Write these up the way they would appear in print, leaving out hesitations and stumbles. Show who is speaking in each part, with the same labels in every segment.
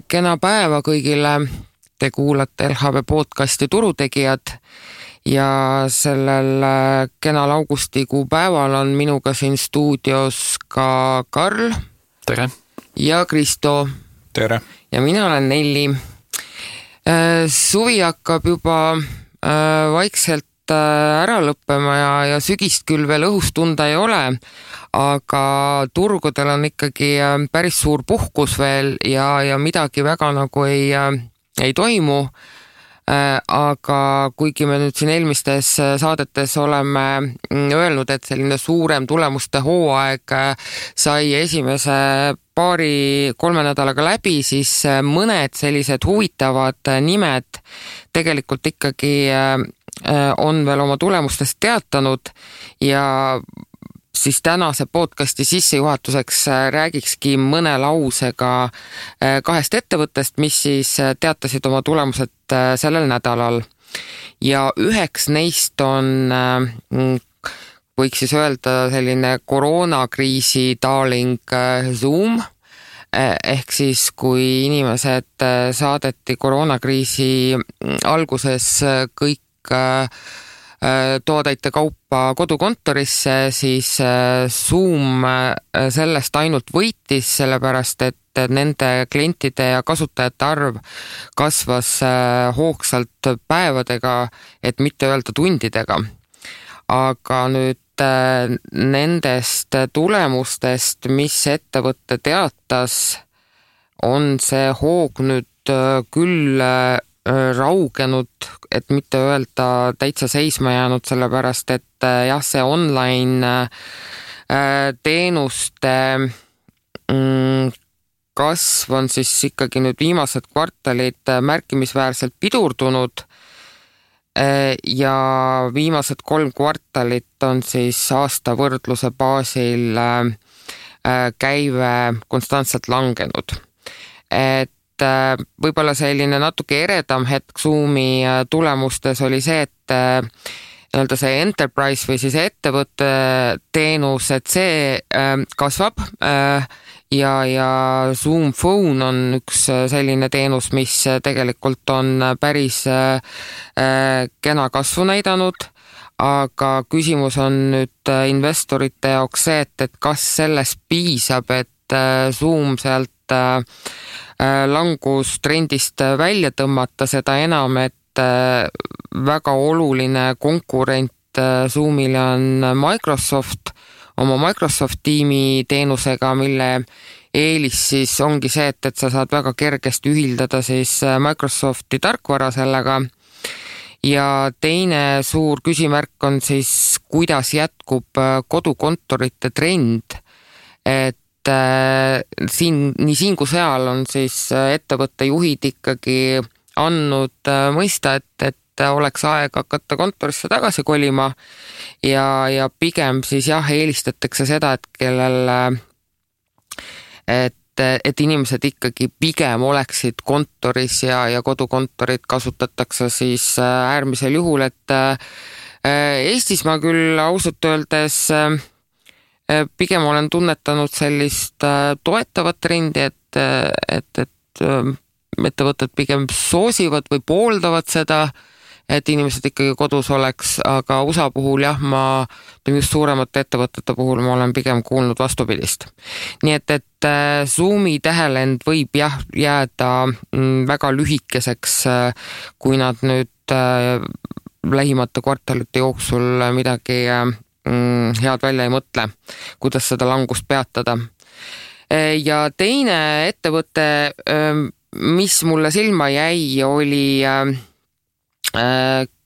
Speaker 1: Kena päeva kõigile. Te kuulate LHV podcasti Turutegijad ja sellel kenal augustikuu päeval on minuga siin stuudios ka Karl.
Speaker 2: Tere!
Speaker 1: Ja Kristo.
Speaker 2: Tere!
Speaker 1: Ja mina olen Nelli. Suvi hakkab juba vaikselt ära lõppema ja sügist küll veel õhus tunda ei ole, aga turgudel on ikkagi päris suur puhkus veel ja midagi väga nagu ei toimu. Aga kuigi me nüüd siin eelmistes saadetes oleme öelnud, et selline suurem tulemuste hooaeg sai esimese 2-3 nädalaga läbi, siis mõned sellised huvitavad nimed tegelikult ikkagi on veel oma tulemustest teatanud ja siis tänase podcasti sissejuhatuseks räägikski mõne lausega 2 ettevõttest, mis siis teatasid oma tulemused sellel nädalal. Ja üheks neist on, võiks siis öelda, selline koroonakriisi darling Zoom, ehk siis kui inimesed saadeti koroonakriisi alguses kõik toodeite kaupa kodukontorisse, siis Zoom sellest ainult võitis, sellepärast et nende klientide ja kasutajate arv kasvas hoogsalt päevadega, et mitte öelda tundidega. Aga nüüd nendest tulemustest, mis ettevõtte teatas, on see hoog nüüd küll raugenud, et mitte öelda täitsa seisma jäänud, sellepärast et jah, see online teenuste kasv on siis ikkagi nüüd viimased kvartalid märkimisväärselt pidurdunud ja viimased 3 kvartalit on siis aasta võrdluse baasil käive konstantselt langenud. Et võib-olla selline natuke eredam hetk Zoomi tulemustes oli see, et see enterprise või siis ettevõtte teenus, et see kasvab ja Zoom Phone on üks selline teenus, mis tegelikult on päris kena kasvu näidanud, aga küsimus on nüüd investorite jaoks see, et kas sellest piisab, et Zoom sealt langustrendist välja tõmmata, seda enam, et väga oluline konkurent Zoomile on Microsoft oma Microsoft Teami teenusega, mille eelis siis ongi see, et sa saad väga kergesti ühildada siis Microsofti tarkvara sellega. Ja teine suur küsimärk on siis, kuidas jätkub kodukontorite trend, et nii siin kui seal on siis ettevõtte juhid ikkagi andnud mõista, et oleks aeg hakata kontorisse tagasi kolima ja pigem siis jah, eelistatakse seda, et kellel et inimesed ikkagi pigem oleksid kontoris ja kodukontorit kasutatakse siis äärmisel juhul, et Eestis ma küll ausalt öeldes pigem olen tunnetanud sellist toetavat trendi, et ettevõtted pigem soosivad või pooldavad seda, et inimesed ikkagi kodus oleks, aga USA puhul jah, just suuremate ettevõtete puhul ma olen pigem kuulnud vastupidist. Nii et Zoomi tähelend võib jah jääda väga lühikeseks, kui nad nüüd lähimate kvartalite jooksul midagi head välja ei mõtle, kuidas seda langust peatada. Ja teine ettevõte, mis mulle silma jäi, oli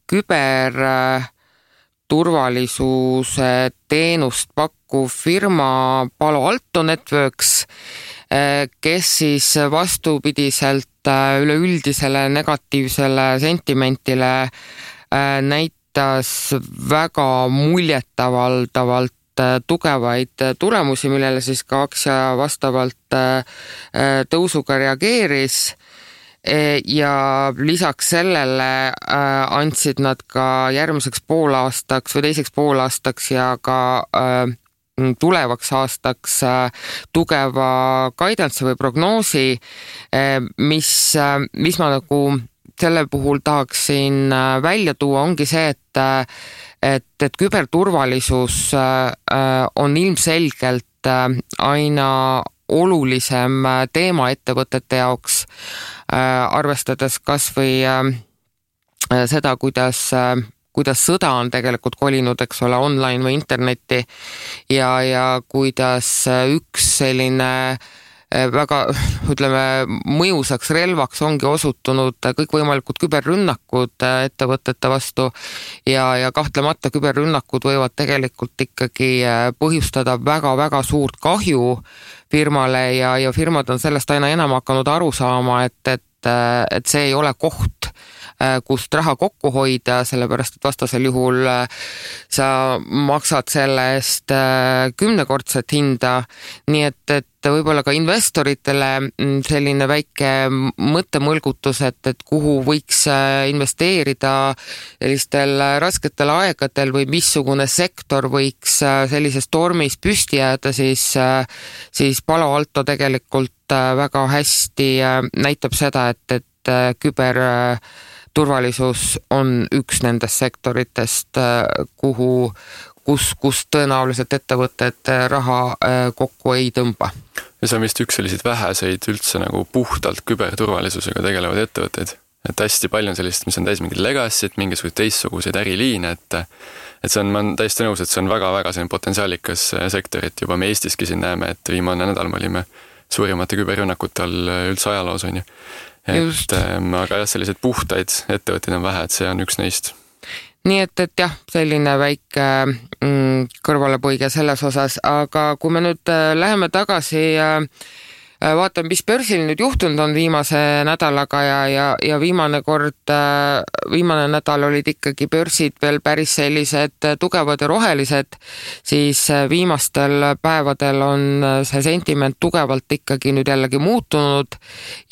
Speaker 1: küberturvalisuse teenust pakkuv firma Palo Alto Networks, kes siis vastupidiselt üleüldisele negatiivsele sentimentile näitas väga muljetavaldavalt tugevaid tulemusi, millele siis ka aktsia vastavalt tõusuga reageeris ja lisaks sellele andsid nad ka järgmiseks poolaastaks või teiseks poolaastaks ja ka tulevaks aastaks tugeva guidance või prognoosi, mis ma nagu selle puhul tahaksin välja tuua, ongi see, et küberturvalisus on ilmselgelt aina olulisem teema ettevõtete jaoks, arvestades kas või seda, kuidas sõda on tegelikult kolinud, eks ole, online või internetti ja kuidas üks selline väga, ütleme, mõjusaks relvaks ongi osutunud kõikvõimalikud küberrünnakud ettevõtete vastu ja kahtlemata küberrünnakud võivad tegelikult ikkagi põhjustada väga-väga suurt kahju firmale ja firmad on sellest aina enam hakanud aru saama, et see ei ole koht, kust raha kokku hoida, sellepärast et vastasel juhul sa maksad selle eest 10-kordset hinda, nii et võib-olla ka investoritele selline väike mõttemõlgutus, et kuhu võiks investeerida sellistel rasketel aegadel või missugune sektor võiks sellises tormis püsti jääda, siis Palo Alto tegelikult väga hästi näitab seda, et küberturvalisus on üks nendest sektoritest, kus tõenäoliselt ettevõtted raha kokku ei tõmba.
Speaker 2: Ja see on vist üks selliseid väheseid üldse nagu puhtalt küberturvalisusega tegelevad ettevõtteid. Et hästi palju on sellist, mis on täis mingid legacy't, mingisugused teistsuguseid äriliine, et see on, ma olen täiesti nõus, et see on väga-väga selline potentsiaalikas sektor, et juba me Eestiski siin näeme, et viimane nädal me olime suurimate küberrünnakute all üldse ajaloos, on ju. Aga jah, sellised puhtaid ettevõtteid on vähe, et see on üks neist.
Speaker 1: Nii et jah, selline väike kõrvalepõige selles osas, aga kui me nüüd läheme tagasi vaatame, mis börsil nüüd juhtunud on viimase nädalaga ja viimane nädal olid ikkagi börsid veel päris sellised tugevad ja rohelised, siis viimastel päevadel on see sentiment tugevalt ikkagi nüüd jällegi muutunud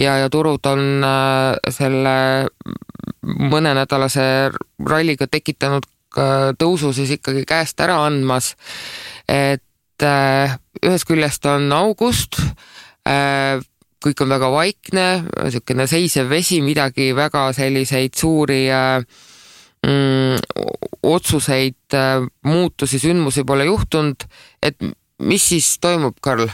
Speaker 1: ja turud on selle mõnenädalase ralliga tekitanud tõusu siis ikkagi käest ära andmas, et ühest küljest on august, kõik on väga vaikne, selline seisev vesi, midagi väga selliseid suuri otsuseid, muutusi, sündmusi pole juhtunud, et mis siis toimub, Karl?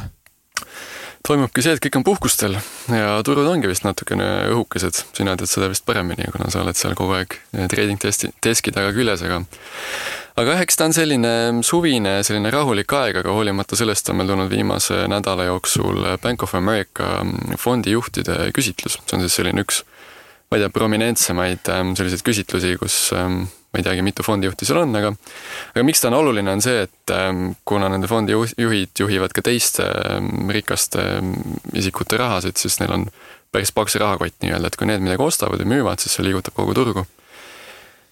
Speaker 2: Toimubki see, et kõik on puhkustel ja turud ongi vist natukene õhukesed. Sina tead seda vist paremini, kuna sa oled seal kogu aeg trading deski taga küljes, aga eks ta on selline suvine, selline rahulik aeg, aga hoolimata sellest on meil tulnud viimase nädala jooksul Bank of America fondijuhtide küsitlus. See on siis selline üks, ma ei tea, prominentsemaid selliseid küsitlusi, kus ma ei teagi, mitu fondijuhti seal on, aga miks ta on oluline on see, et kuna nende fondijuhid juhivad ka teiste rikaste isikute rahasid, siis neil on päris paks rahakott nii-öelda, et kui need midagi ostavad ja müüvad, siis see liigutab kogu turgu.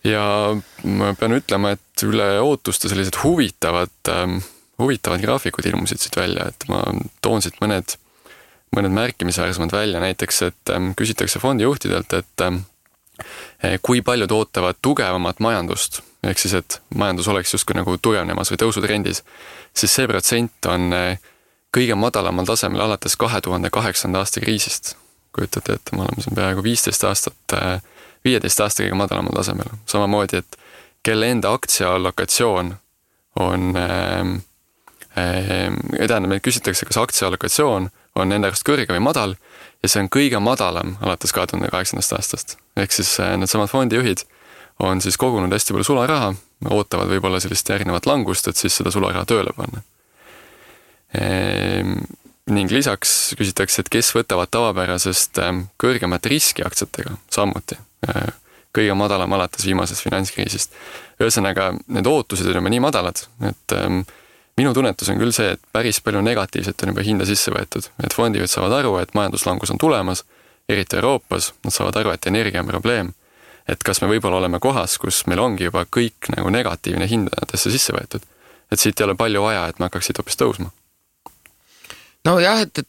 Speaker 2: Ja ma pean ütlema, et üle ootuste sellised huvitavad graafikud ilmusid siit välja, et ma toon siit mõned märkimisväärsemad välja, näiteks, et küsitakse fondijuhtidelt, et kui paljud ootavad tugevamat majandust, ehk siis, et majandus oleks justkui nagu tugevnemas või tõusutrendis, siis see protsent on kõige madalamal tasemel alates 2008. aasta kriisist. Kujutate, et me oleme siin peaaegu 15 aasta kõige madalamal tasemel. Samamoodi, et kelle enda aktsiaalokatsioon on, tähendab, et küsitakse, kas aktsiaalokatsioon on enda arust kõrge või madal, ja see on kõige madalam alates 2008. aastast. Ehk siis needsamad fondijuhid on siis kogunud hästi palju sularaha, ootavad võib-olla sellist järgnevat langust, et siis seda sularaha tööle panna. Ning lisaks küsitakse, et kes võtavad tavapärasest kõrgemat riski aktsiatega samuti. Kõige madalam alates viimasest finantskriisist. Ühesõnaga, need ootused on juba nii madalad, et minu tunnetus on küll see, et päris palju negatiivset on juba hinda sisse võetud. Et fondijuhid saavad aru, et majanduslangus on tulemas, eriti Euroopas, nad saavad aru, et energia on probleem. Et kas me võib-olla oleme kohas, kus meil ongi juba kõik nagu negatiivne hindadesse sisse võetud. Et siit ei ole palju vaja, et me hakkaksid hoopis tõusma.
Speaker 1: no jah, et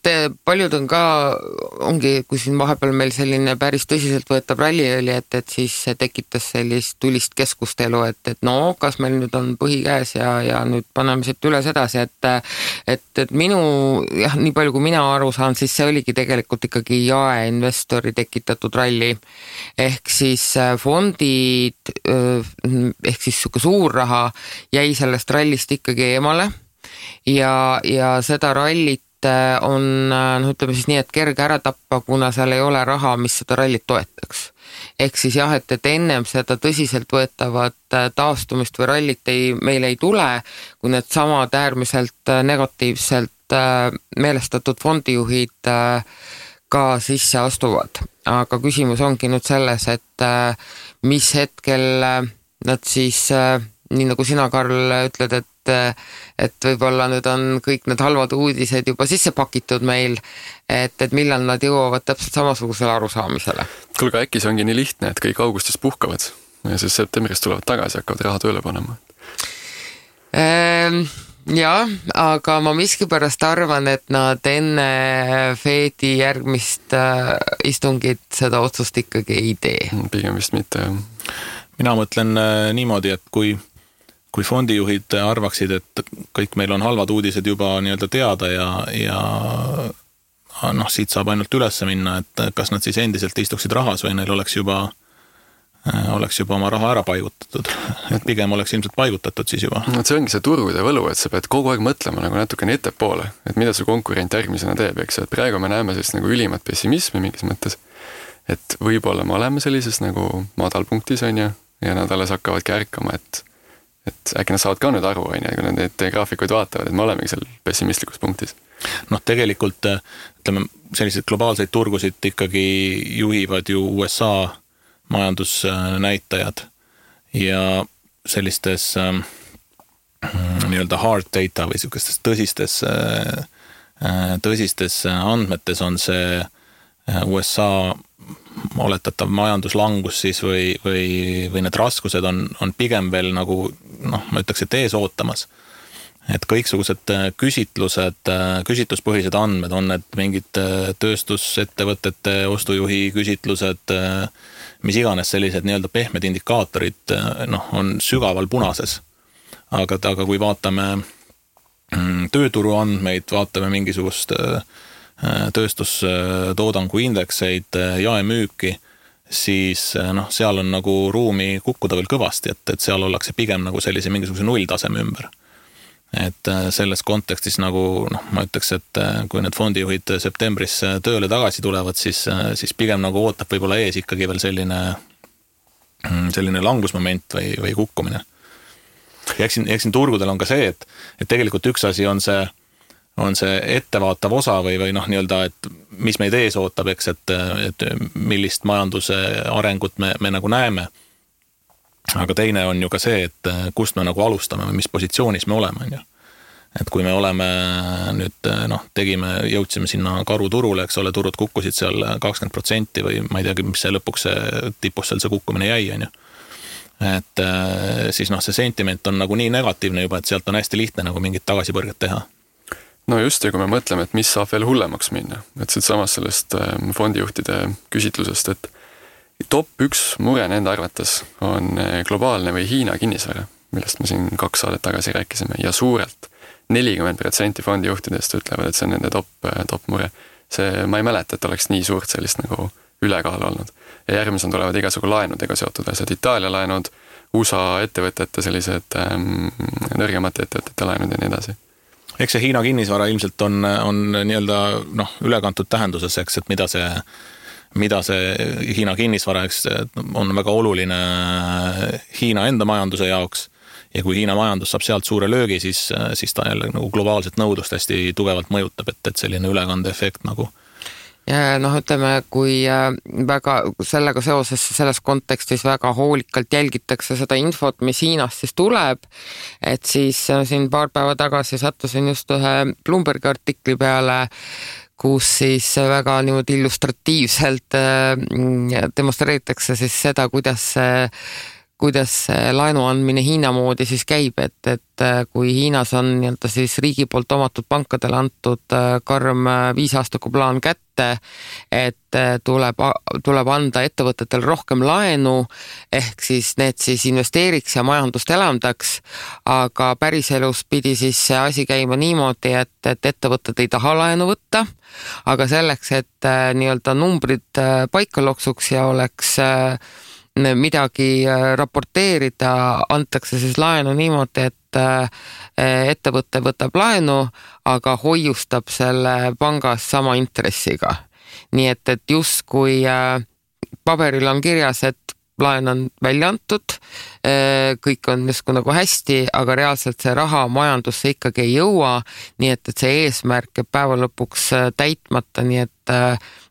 Speaker 1: paljud on ka, ongi, kui siin vahepeal meil selline päris tõsiselt võetav ralli oli, et siis see tekitas sellist tulist keskustelu, et no kas meil nüüd on põhi käes ja nüüd paneme siit üles edasi, et minu, jah, nii palju kui mina aru saan, siis see oligi tegelikult ikkagi jaeinvestori tekitatud ralli. Ehk siis fondid, ehk siis siuke suur raha jäi sellest rallist ikkagi eemale ja seda rallit on, ütleme siis nii, et kerge ära tappa, kuna seal ei ole raha, mis seda rallit toetaks. Ehk siis jah, et ennem seda tõsiselt võetavat taastumist või rallit meil ei tule, kui need samad äärmiselt negatiivselt meelestatud fondijuhid ka sisse astuvad. Aga küsimus ongi nüüd selles, et mis hetkel nad siis, nii nagu sina, Karl, ütled, et võib-olla nüüd on kõik need halvad uudised juba sisse pakitud meil, et millal nad jõuavad täpselt samasugusele arusaamisele.
Speaker 2: Kuulge, äkki see ongi nii lihtne, et kõik augustis puhkavad ja siis septembris tulevad tagasi ja hakkavad raha tööle panema?
Speaker 1: Jah, aga ma miskipärast arvan, et nad enne Fedi järgmist istungit seda otsust ikkagi ei tee.
Speaker 2: Pigem vist mitte, jah.
Speaker 3: Mina mõtlen niimoodi, et kui fondijuhid arvaksid, et kõik meil on halvad uudised juba nii-öelda teada ja siit saab ainult üles minna, et kas nad siis endiselt istuksid rahas või neil oleks juba oma raha ära paigutatud. Et pigem oleks ilmselt paigutatud siis juba.
Speaker 2: No, see ongi see turude võlu, et sa pead kogu aeg mõtlema nagu natukene ettepoole, et mida su konkurent järgmisena teeb, eks, et praegu me näeme sellist nagu ülimat pessimismi mingis mõttes, et võib-olla me oleme sellises nagu madalpunktis, on ju, ja nad alles hakkavadki ärkama, et äkki nad saavad ka nüüd aru, kui nad neid graafikuid vaatavad, et me olemegi seal pessimistlikus punktis.
Speaker 3: Tegelikult, ütleme, selliseid globaalseid turgusid ikkagi juhivad ju USA majandusnäitajad ja sellistes nii-öelda hard data või sellistes tõsistes andmetes on see USA oletatav majanduslangus siis või need raskused on pigem veel nagu, ma ütleks, et ees ootamas. Et kõiksugused küsitluspõhised andmed on need mingid tööstusettevõtete ostujuhi küsitlused, mis iganes sellised nii-öelda pehmed indikaatorid on sügaval punases. Aga kui vaatame tööturu andmeid, vaatame mingisugust tööstustoodangu indekseid, jaemüüki, siis seal on nagu ruumi kukkuda veel kõvasti, et seal ollakse pigem nagu sellise mingisuguse nulltaseme ümber. Et selles kontekstis nagu, ma ütleks, et kui need fondijuhid septembris tööle tagasi tulevad, siis pigem nagu ootab võib-olla ees ikkagi veel selline langusmoment või kukkumine. Ja eks siin turgudel on ka see, et tegelikult üks asi on see ettevaatav osa või nii-öelda, et mis meid ees ootab, eks, et millist majanduse arengut me nagu näeme. Aga teine on ju ka see, et kust me nagu alustame või mis positsioonis me oleme. On ju. Et kui me oleme nüüd, jõudsime sinna karuturule, eks ole, turud kukkusid seal 20% või ma ei teagi, mis see lõpuks tipus seal see kukkumine jäi. On ju. Et siis see sentiment on nagu nii negatiivne juba, et sealt on hästi lihtne nagu mingit tagasipõrget teha.
Speaker 2: No just, ja kui me mõtleme, et mis saab veel hullemaks minna, et siit samas sellest fondijuhtide küsitlusest, et top 1 mure nende arvates on globaalne või Hiina kinnisvara, millest me siin 2 saadet tagasi rääkisime, ja suurelt 40% fondijuhtidest ütlevad, et see on nende top mure. Ma ei mäleta, et oleks nii suurt sellist nagu ülekaal olnud. Ja järgmised tulevad igasugu laenudega seotud asjad, Itaalia laenud, USA ettevõtete sellised nõrgemate ettevõtete laenud ja nii edasi.
Speaker 3: Eks see Hiina kinnisvara ilmselt on nii-öelda ülekantud tähenduses, eks, et mida see Hiina kinnisvara, eks, on väga oluline Hiina enda majanduse jaoks ja kui Hiina majandus saab sealt suure löögi, siis ta jälle nagu globaalset nõudlust hästi tugevalt mõjutab, et selline ülekandeefekt nagu.
Speaker 1: Ja ütleme, kui väga sellega seoses selles kontekstis väga hoolikalt jälgitakse seda infot, mis Hiinast siis tuleb, et siis siin paar päeva tagasi sattusin just ühe Bloombergi artikli peale, kus siis väga niimoodi illustratiivselt demonstreeritakse siis seda, kuidas kuidas laenu andmine Hiina moodi siis käib, et kui Hiinas on nii-öelda siis riigi poolt omatud pankadele antud karm 5-aastaku plaan kätte, et tuleb anda ettevõtetel rohkem laenu, ehk siis need siis investeeriks ja majandust elavdaks, aga päriselus pidi siis see asi käima niimoodi, et ettevõtted ei taha laenu võtta, aga selleks, et nii-öelda numbrid paika loksuks ja oleks midagi raporteerida, antakse siis laenu niimoodi, et ettevõte võtab laenu, aga hoiustab selle pangas sama intressiga. Nii et justkui paberil on kirjas, et laen on välja antud, kõik on justkui nagu hästi, aga reaalselt see raha majandusse ikkagi ei jõua, nii et see eesmärk jääb päeva lõpuks täitmata, nii et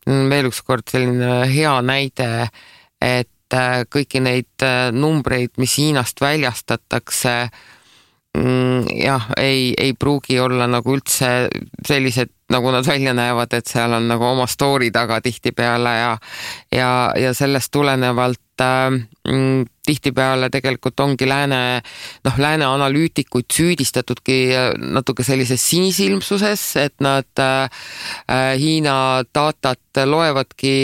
Speaker 1: veel üks kord selline hea näide, et kõiki neid numbreid, mis Hiinast väljastatakse, jah, ei pruugi olla nagu üldse sellised, nagu nad välja näevad, et seal on nagu oma story taga tihtipeale ja sellest tulenevalt tihtipeale tegelikult ongi lääne analüütikuid süüdistatudki natuke sellises sinisilmsuses, et nad Hiina datat loevadki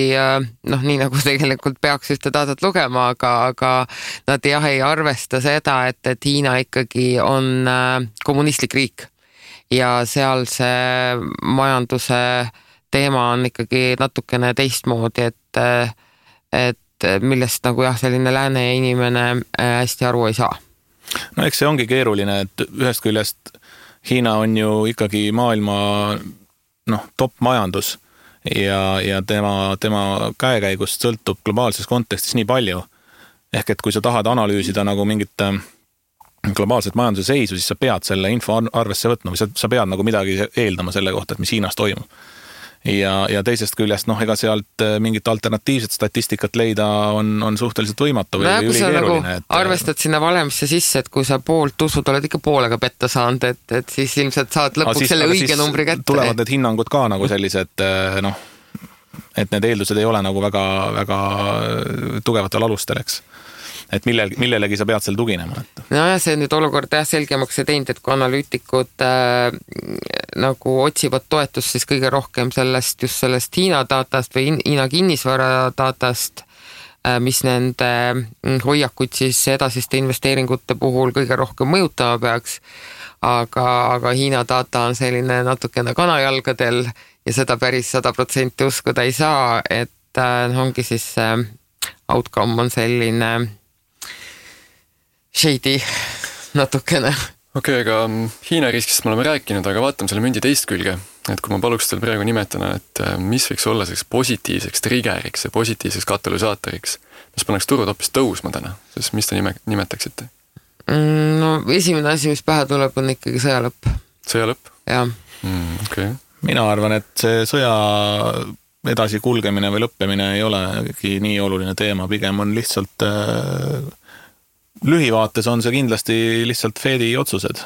Speaker 1: nii nagu tegelikult peaks ühte datat lugema, aga nad ei arvesta seda, et Hiina ikkagi on kommunistlik riik ja seal see majanduse teema on ikkagi natukene teistmoodi, et millest nagu jah, selline lääne inimene hästi aru ei saa.
Speaker 3: No eks see ongi keeruline, et ühest küljest Hiina on ju ikkagi maailma top majandus ja tema käekäigust sõltub globaalses kontekstis nii palju. Ehk et kui sa tahad analüüsida nagu mingit globaalset majanduse seisu, siis sa pead selle info arvesse võtma või sa pead nagu midagi eeldama selle kohta, et mis Hiinas toimub. Ja teisest küljest, ega sealt mingit alternatiivset statistikat leida on suhteliselt võimatu või ülikeeruline.
Speaker 1: Nagu arvestad sinna valemisse sisse, et kui sa poolt usud, oled ikka poolega petta saanud, et siis ilmselt saad lõpuks selle õige numbri kätte.
Speaker 3: Tulevad need hinnangud ka nagu sellised, et need eeldused ei ole nagu väga, väga tugevatel alustel, eks. Et millelegi sa pead seal tuginema.
Speaker 1: No ja see nüüd olukord selgemaks ei teinud, et kui analüütikud nagu otsivad toetust, siis kõige rohkem just sellest Hiina datast või Hiina kinnisvara datast, mis nende hoiakuid siis edasiste investeeringute puhul kõige rohkem mõjutama peaks, aga Hiina data on selline natukene kanajalgadel ja seda päris 100% uskuda ei saa, et ongi siis outcome on selline shady natukene.
Speaker 2: Okei, aga Hiina riskist me oleme rääkinud, aga vaatame selle mündi teist külge. Et kui ma paluks teil praegu nimetana, et mis võiks olla selleks positiivseks triggeriks ja positiivseks katalüsaatoriks, mis paneks turud hoopis tõusma täna, siis mis te nimetaksite?
Speaker 1: No esimene asi, mis pähe tuleb, on ikkagi sõjalõpp.
Speaker 2: Sõjalõpp?
Speaker 1: Jah.
Speaker 2: Okay.
Speaker 3: Mina arvan, et see sõja edasi kulgemine või lõppemine ei olegi nii oluline teema, pigem on lihtsalt lühivaates on see kindlasti lihtsalt Fedi otsused.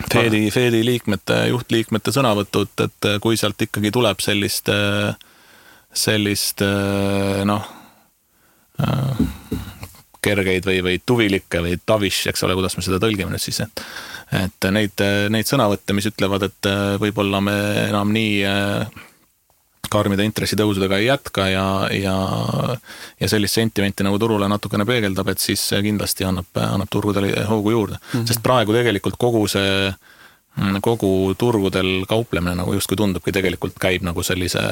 Speaker 3: Fedi juhtliikmete sõnavõtud, et kui sealt ikkagi tuleb sellist kergeid või tuvilikke või tavish, eks ole, kuidas me seda tõlgime nüüd siis, et neid sõnavõtte, mis ütlevad, et võib-olla me enam nii karmide intressitõusudega ei jätka ja sellist sentimenti nagu turule natukene peegeldab, et siis kindlasti annab turgudele hoogu juurde. Sest praegu tegelikult kogu turgudel kauplemine nagu justkui tundubki tegelikult käib nagu sellise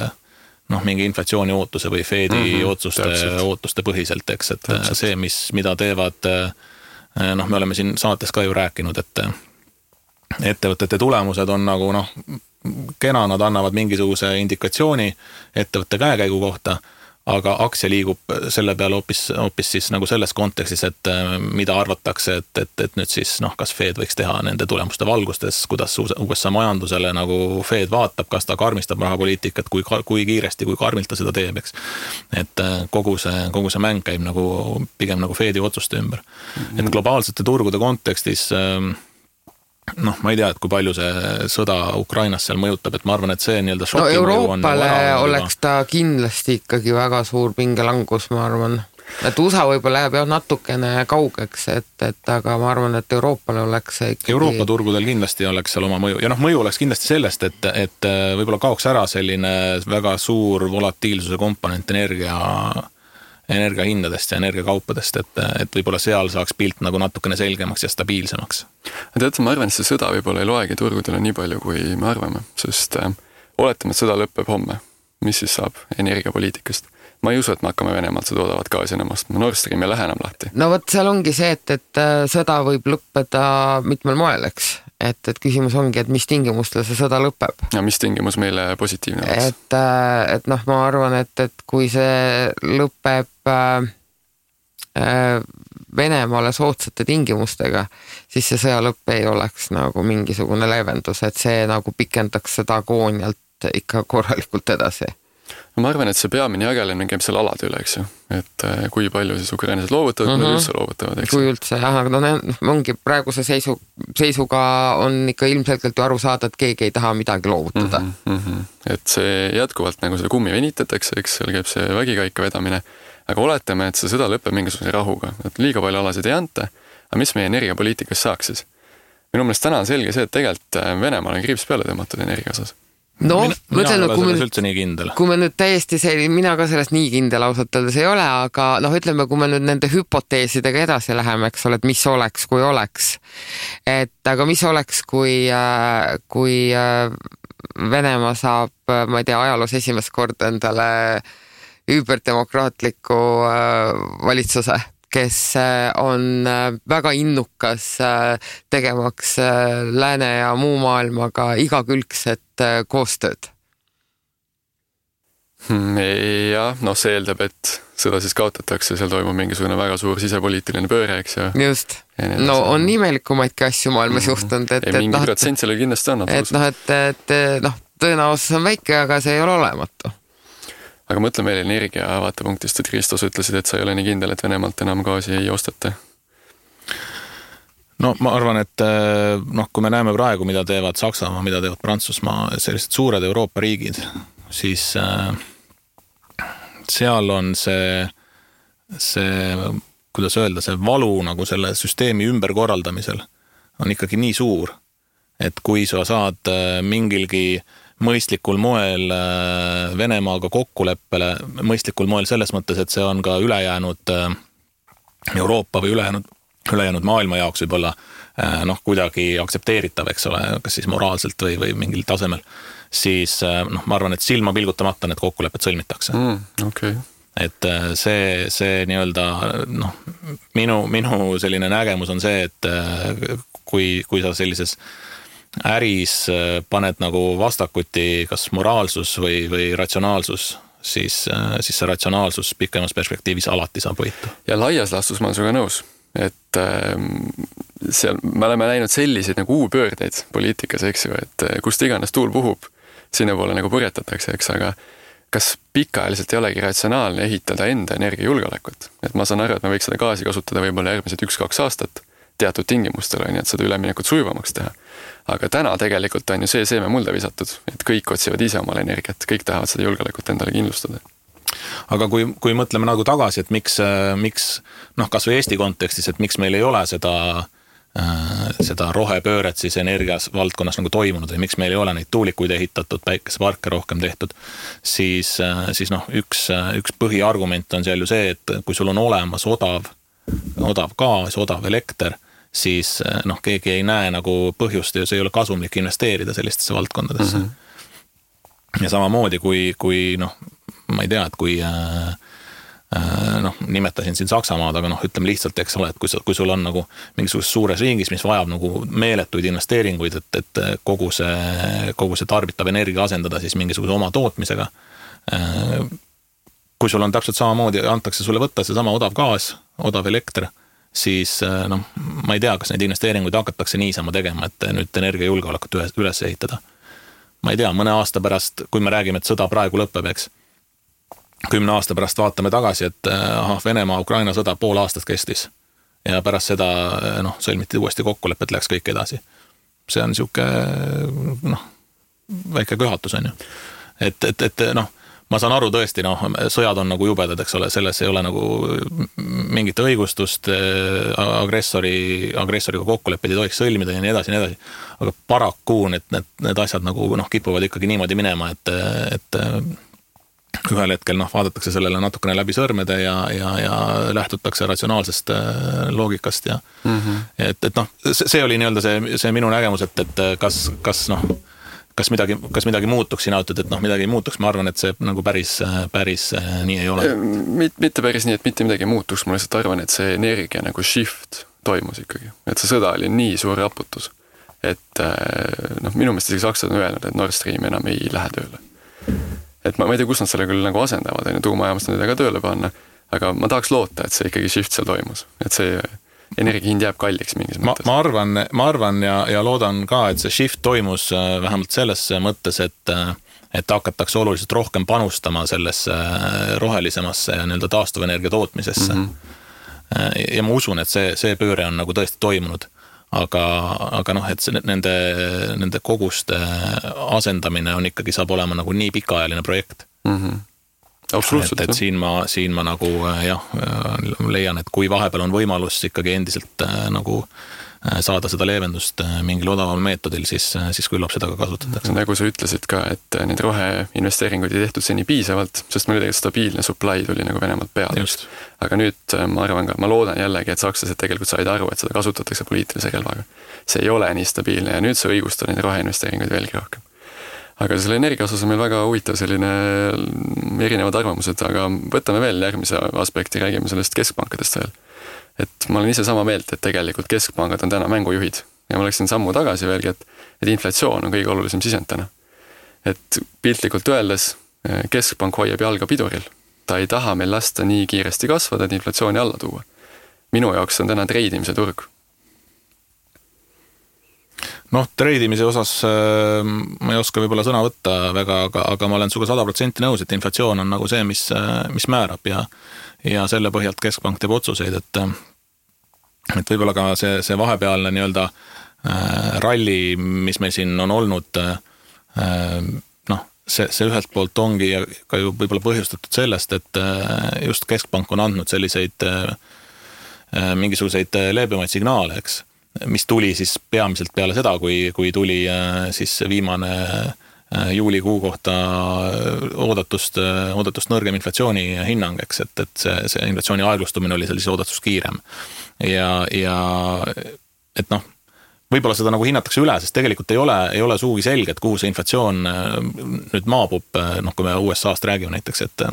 Speaker 3: mingi inflatsiooni ootuse või Fedi ootuste põhiselt, eks, et täpselt. See, mida teevad, me oleme siin saates ka ju rääkinud, et ettevõtete tulemused on nagu kena, nad annavad mingisuguse indikatsiooni ettevõtte käekäigu kohta, aga aktsia liigub selle peale hoopis siis nagu selles kontekstis, et mida arvatakse, et nüüd siis kas Fed võiks teha nende tulemuste valgustes, kuidas USA majandusele nagu Fed vaatab, kas ta karmistab rahapoliitikat, kui kiiresti, kui karmilt ta seda teeb, eks. Et kogu see mäng käib nagu pigem nagu Fedi otsuste ümber. Et globaalsete turgude kontekstis ma ei tea, et kui palju see sõda Ukrainas seal mõjutab, et ma arvan, et see nii-öelda šoki
Speaker 1: Euroopale oleks ta kindlasti ikkagi väga suur pingelangus, ma arvan. et USA võib-olla läheb jah natukene kaugeks, et aga ma arvan, et Euroopale oleks see ikkagi...
Speaker 3: Euroopa turgudel kindlasti oleks seal oma mõju ja mõju oleks kindlasti sellest, et võib-olla kaoks ära selline väga suur volatiilsuse komponent energia hindadest ja energiakaupadest, et võib-olla seal saaks pilt nagu natukene selgemaks ja stabiilsemaks.
Speaker 2: Tead, ma arvan, et see sõda võib-olla ei loegi turgudele nii palju, kui me arvame, sest oletame, et sõda lõpeb homme. Mis siis saab energiapoliitikast? Ma ei usu, et me hakkame Venemaalt seda odavat gaasi enam ostma. Nord Stream ei lähe enam lahti.
Speaker 1: No vot, seal ongi see, et sõda võib lõppeda mitmel moel, eks. Et küsimus ongi, et mis tingimustel see sõda lõpeb.
Speaker 2: Ja mis tingimus meile positiivne oleks?
Speaker 1: Et ma arvan, et kui see lõpeb Venemaale soodsate tingimustega, siis see sõja lõpp ei oleks nagu mingisugune leevendus, et see nagu pikendaks seda agoonialt ikka korralikult edasi.
Speaker 2: No ma arvan, et see peamine jagelemine käib seal alade üle, eks ju. Et kui palju siis ukrainlased loovutavad, kui üldse loovutavad, eks ju.
Speaker 1: Kui üldse, jah, aga ongi praeguse seisuga on ikka ilmselgelt ju aru saada, et keegi ei taha midagi loovutada.
Speaker 2: Et see jätkuvalt nagu seda kummi venitatakse, eks seal käib see vägikaika vedamine, aga oletame, et see sõda lõpeb mingisuguse rahuga, et liiga palju alasid ei anta, aga mis meie energiapoliitikas saaks siis? Minu meelest täna on selge see, et tegelikult Venemaal on kriips peale tõmmatud energia osas.
Speaker 1: No, kui me nüüd täiesti mina ka sellest nii kindel ausalt öeldes ei ole, aga ütleme, kui me nüüd nende hüpoteesidega edasi läheme, eks ole, et mis oleks, kui oleks. Aga mis oleks, kui Venemaa saab, ma ei tea, ajaloos esimest korda endale üüberdemokraatliku valitsuse, kes on väga innukas tegemaks lääne ja muu maailmaga igakülgset koostööd.
Speaker 2: Jah, see eeldab, et seda siis kaotatakse, seal toimub mingisugune väga suur sisepoliitiline pööre, eks ju.
Speaker 1: Just. No on imelikumaidki asju maailmas juhtunud.
Speaker 2: Mingi protsent sellel kindlasti on.
Speaker 1: Et tõenäosus on väike, aga see ei ole olematu.
Speaker 2: Aga mõtle meil energia vaatepunktist, et Kristos ütlesid, et sa ei ole nii kindel, et Venemaalt enam gaasi ei ostata.
Speaker 3: No ma arvan, et kui me näeme praegu, mida teevad Saksamaa, mida teevad Prantsusmaa, sellised suured Euroopa riigid, siis seal on see, kuidas öelda, see valu nagu selle süsteemi ümberkorraldamisel on ikkagi nii suur, et kui sa saad mingilgi mõistlikul moel Venemaaga kokkuleppele, mõistlikul moel selles mõttes, et see on ka ülejäänud Euroopa või ülejäänud maailma jaoks võib-olla kuidagi aktsepteeritav, eks ole, kas siis moraalselt või mingil tasemel, siis ma arvan, et silma pilgutamata need kokkulepped sõlmitakse.
Speaker 2: Okay.
Speaker 3: Et see nii-öelda, minu selline nägemus on see, et kui sa sellises äris paned nagu vastakuti kas moraalsus või ratsionaalsus, siis see ratsionaalsus pikemas perspektiivis alati saab võita. Ja
Speaker 2: laias laastus ma olen sinuga nõus, et seal me oleme näinud selliseid nagu uupöördeid poliitikas, eks ju, et kust iganes tuul puhub, sinna poole nagu purjetatakse, eks, aga kas pikaajaliselt ei olegi ratsionaalne ehitada enda energiajulgeolekut? Et ma saan aru, et me võiks seda gaasi kasutada võib-olla järgmised 1-2 aastat teatud tingimustel, nii et seda üleminekut sujuvamaks teha. Aga täna tegelikult on ju see seeme mulda visatud, et kõik otsivad ise omale energiat, kõik tahavad seda julgeolekut endale kindlustada.
Speaker 3: Aga kui mõtleme nagu tagasi, et miks kas või Eesti kontekstis, et miks meil ei ole seda rohepööret siis energias valdkonnas nagu toimunud või miks meil ei ole neid tuulikuid ehitatud, päikeseparke rohkem tehtud, siis üks põhiargument on seal ju see, et kui sul on olemas odav gaas, odav elekter, siis keegi ei näe nagu põhjust ja see ei ole kasumlik investeerida sellistesse valdkondadesse. Ja samamoodi kui ma ei tea, et kui nimetasin siin Saksamaad, aga ütleme lihtsalt, eks ole, et kui sul on nagu mingisugustes suures riigis, mis vajab nagu meeletuid investeeringuid, et kogu see tarbitav energia asendada siis mingisuguse oma tootmisega, kui sul on täpselt samamoodi, antakse sulle võtta see sama odav gaas, odav elekter, siis ma ei tea, kas neid investeeringuid hakatakse niisama tegema, et nüüd energiajulgeolekut üles ehitada. Ma ei tea, mõne aasta pärast, kui me räägime, et sõda praegu lõpeb, eks, 10 aasta pärast vaatame tagasi, et Venemaa-Ukraina sõda pool aastat kestis ja pärast seda sõlmiti uuesti kokkulepped, läks kõik edasi. See on siuke väike köhatus, on ju. Et ma saan aru tõesti, sõjad on nagu jubedad, eks ole, selles ei ole nagu mingit õigustust, agressoriga kokkuleppeid ei tohiks sõlmida ja nii edasi, aga paraku need asjad nagu kipuvad ikkagi niimoodi minema, et ühel hetkel vaadatakse sellele natukene läbi sõrmede ja lähtutakse ratsionaalsest loogikast ja et see oli nii-öelda see minu nägemus, et kas midagi muutuks, sina ütled, et midagi ei muutuks, ma arvan, et see nagu päris nii ei ole.
Speaker 2: Mitte päris nii, et mitte midagi ei muutuks, ma lihtsalt arvan, et see energia nagu shift toimus ikkagi, et see sõda oli nii suur raputus, et minu meelest isegi sakslased on öelnud, et Nord Stream enam ei lähe tööle. Et ma ei tea, kus nad selle küll nagu asendavad, tuumajaamast nad ka tööle panna, aga ma tahaks loota, et see ikkagi shift seal toimus, et see energiahind jääb kalliks mingis mõttes.
Speaker 3: Ma arvan ja loodan ka, et see shift toimus vähemalt selles mõttes, et hakatakse oluliselt rohkem panustama sellesse rohelisemasse ja nii-öelda taastuvenergia tootmisesse. Ja ma usun, et see pööre on nagu tõesti toimunud. Aga et nende koguste asendamine on ikkagi saab olema nagu nii pikaajaline projekt.
Speaker 2: Absoluutselt.
Speaker 3: Et siin ma nagu leian, et kui vahepeal on võimalus ikkagi endiselt nagu saada seda leevendust mingil odaval meetodil, siis küllap seda ka kasutatakse.
Speaker 2: Nagu sa ütlesid ka, et need roheinvesteeringuid ei tehtud seni piisavalt, sest meil tegelikult stabiilne supply tuli nagu Venemaalt peale. Aga nüüd ma arvan ka, ma loodan jällegi, et sakslased tegelikult said aru, et seda kasutatakse poliitilise relvaga. See ei ole nii stabiilne ja nüüd see õigustab neid roheinvesteeringuid veelgi rohkem. Aga selle energia osas on meil väga huvitav selline erinevad arvamused, aga võtame veel järgmise aspekti, räägime sellest keskpankadest veel. Et ma olen ise sama meelt, et tegelikult keskpangad on täna mängujuhid ja ma läksin sammu tagasi veelgi, et inflatsioon on kõige olulisem sisend täna. Et piltlikult öeldes keskpank hoiab jalga piduril. Ta ei taha meil lasta nii kiiresti kasvada, et inflatsiooni alla tuua. Minu jaoks on täna treidimise turg.
Speaker 3: Treidimise osas ma ei oska võib-olla sõna võtta väga, aga ma olen suga 100% nõus, et inflatsioon on nagu see, mis määrab ja selle põhjalt keskpank teeb otsuseid, et võib-olla ka see vahepealne nii-öelda ralli, mis meil siin on olnud, see ühelt poolt ongi ka ju võib-olla põhjustatud sellest, et just keskpank on andnud selliseid mingisuguseid leebemaid signaale, eks, mis tuli siis peamiselt peale seda, kui tuli siis viimane juulikuu kohta oodatust nõrgem inflatsiooni hinnang, eks, et see inflatsiooni aeglustumine oli sellise oodatust kiirem. Ja et võib-olla seda nagu hinnatakse üle, sest tegelikult ei ole suugi selge, et kuhu see inflatsioon nüüd maabub, kui me USA-st räägime näiteks, et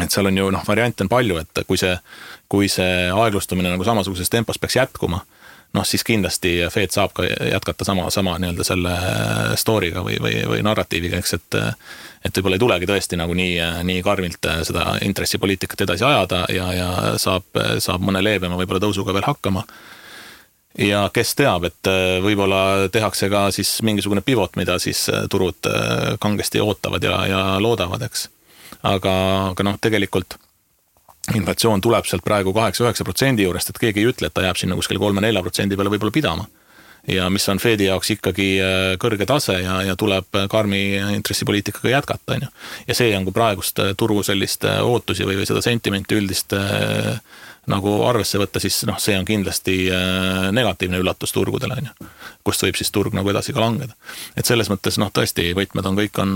Speaker 3: seal on ju variante on palju, et kui see aeglustumine nagu samasuguses tempos peaks jätkuma, siis kindlasti Fed saab ka jätkata sama nii-öelda selle story'ga või narratiiviga, eks, et võib-olla ei tulegi tõesti nagu nii karmilt seda intressipoliitikat edasi ajada ja saab mõne leebema võib-olla tõusuga veel hakkama. Ja kes teab, et võib-olla tehakse ka siis mingisugune pivot, mida siis turud kangesti ootavad ja loodavad, eks. Aga tegelikult inflatsioon tuleb sealt praegu 8-9% juurest, et keegi ei ütle, et ta jääb sinna kuskil 3-4% peale võib-olla pidama. Ja mis on Fedi jaoks ikkagi kõrge tase ja tuleb karmi intressipoliitikaga jätkata. Ja see on, kui praegust turu sellist ootusi või seda sentimenti üldist nagu arvesse võtta, siis see on kindlasti negatiivne üllatus turgudele, kust võib siis turg nagu edasi ka langeda. Et selles mõttes tõesti võtmed on kõik on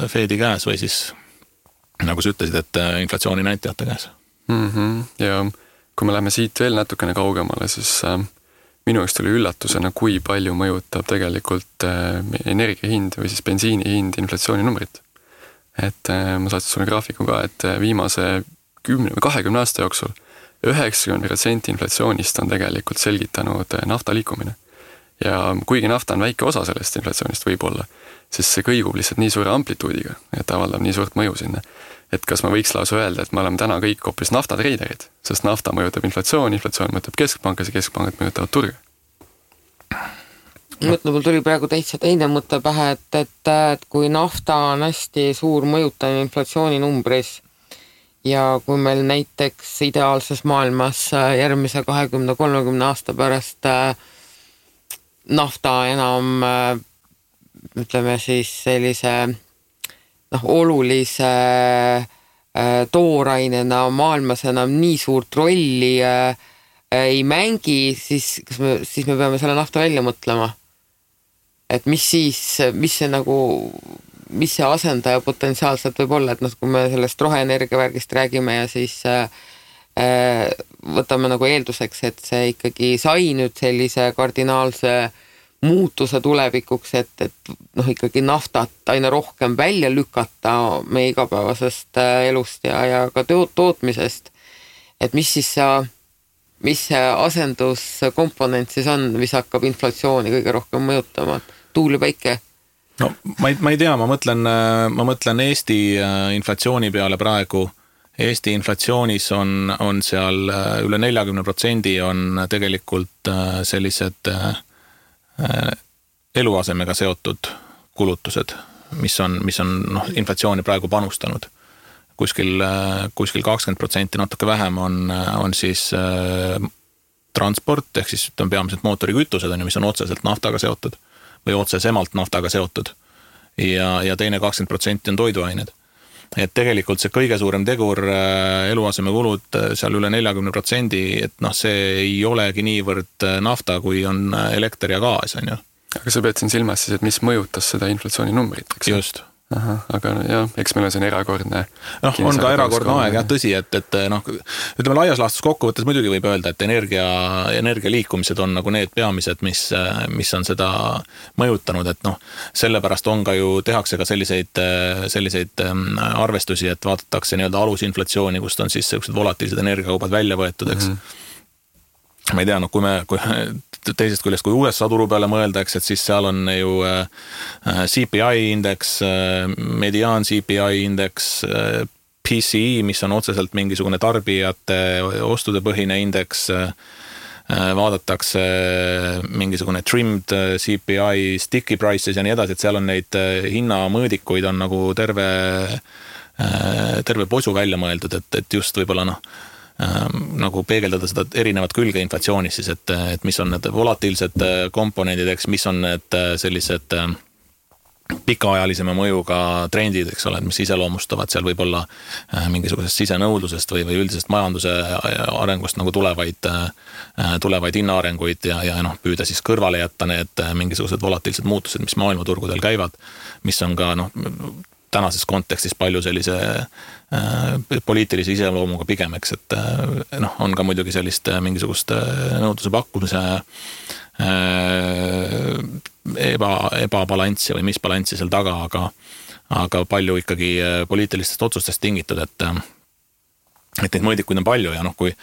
Speaker 3: Fedi käes või siis nagu sa ütlesid, et inflatsiooni näitajate käes.
Speaker 2: Ja kui me läheme siit veel natukene kaugemale, siis minu jaoks tuli üllatusena, kui palju mõjutab tegelikult energiahind või siis bensiini hind inflatsiooni numbrit. Et ma saatsin sulle graafiku ka, et viimase 10 või 20 aasta jooksul 90% inflatsioonist on tegelikult selgitanud nafta liikumine. Ja kuigi nafta on väike osa sellest inflatsioonist võib-olla, siis see kõigub lihtsalt nii suure amplituudiga, et avaldab nii suurt mõju sinna. Et kas ma võiks lausa öelda, et me oleme täna kõik hoopis naftatreiderid, sest nafta mõjutab inflatsioon mõjutab keskpankas ja keskpangad mõjutavad turge.
Speaker 1: Mul tuli praegu täitsa teine mõte pähe, et kui nafta on hästi suur mõjutav inflatsiooni numbris ja kui meil näiteks ideaalses maailmas järgmise 20-30 aasta pärast nafta enam ütleme siis sellise olulise toorainena maailmas enam nii suurt rolli ei mängi, siis me peame selle nafta välja mõtlema. Et mis see asendaja potentsiaalselt võib olla, et kui me sellest roheenergia värgist räägime ja siis võtame nagu eelduseks, et see ikkagi sai nüüd sellise kardinaalse muutuse tulevikuks, et ikkagi naftat aina rohkem välja lükata meie igapäevasest elust ja ka tootmisest. Et mis see asenduskomponent siis on, mis hakkab inflatsiooni kõige rohkem mõjutama? Tuul ja päike?
Speaker 3: No ma ei tea, ma mõtlen Eesti inflatsiooni peale praegu. Eesti inflatsioonis on seal üle 40% on tegelikult sellised eluasemega seotud kulutused, mis on inflatsiooni praegu panustanud. Kuskil 20% natuke vähem on siis transport, ehk siis peamiselt mootorikütused, mis on otseselt naftaga seotud või otsesemalt naftaga seotud. Ja teine 20% on toiduained. Et tegelikult see kõige suurem tegur eluaseme kulud seal üle 40%, et see ei olegi niivõrd nafta, kui on elekter ja gaas, on ju.
Speaker 2: Aga sa pead siin silmas siis, et mis mõjutas seda inflatsiooni numbrit, eks?
Speaker 3: Just.
Speaker 2: Aha, aga jah, eks meil on siin erakordne.
Speaker 3: On ka erakordne aeg, jah, tõsi, et ütleme laias laastus kokkuvõttes muidugi võib öelda, et energia liikumised on nagu need peamised, mis on seda mõjutanud, et sellepärast on ka ju, tehakse ka selliseid arvestusi, et vaadatakse nii-öelda alusinflatsiooni, kust on siis sellised volatiilsed energiakaubad välja võetud, eks. Ma ei tea, kui teisest küljest, kui USA turu peale mõeldaks, et siis seal on ju CPI indeks, mediaan CPI indeks, PCE, mis on otseselt mingisugune tarbijate ostude põhine indeks, vaadatakse mingisugune trimmed CPI, sticky prices ja nii edasi, et seal on neid hinnamõõdikuid on nagu terve posu välja mõeldud, et just võib-olla nagu peegeldada seda erinevat külge inflatsioonis siis, et mis on need volatiilsed komponendid, eks, mis on need sellised pikaajalisema mõjuga trendid, eks ole, mis iseloomustavad seal võib-olla mingisugusest sisenõudlusest või üldisest majanduse arengust nagu tulevaid hinnaarenguid ja püüda siis kõrvale jätta need mingisugused volatiilsed muutused, mis maailmaturgudel käivad, mis on ka tänases kontekstis palju sellise poliitilise iseloomuga pigem, eks, et on ka muidugi sellist mingisugust nõudluse pakkumise ebabalanssi või misbalanssi seal taga, aga palju ikkagi poliitilistest otsustest tingitud, et neid mõõdikuid on palju ja kui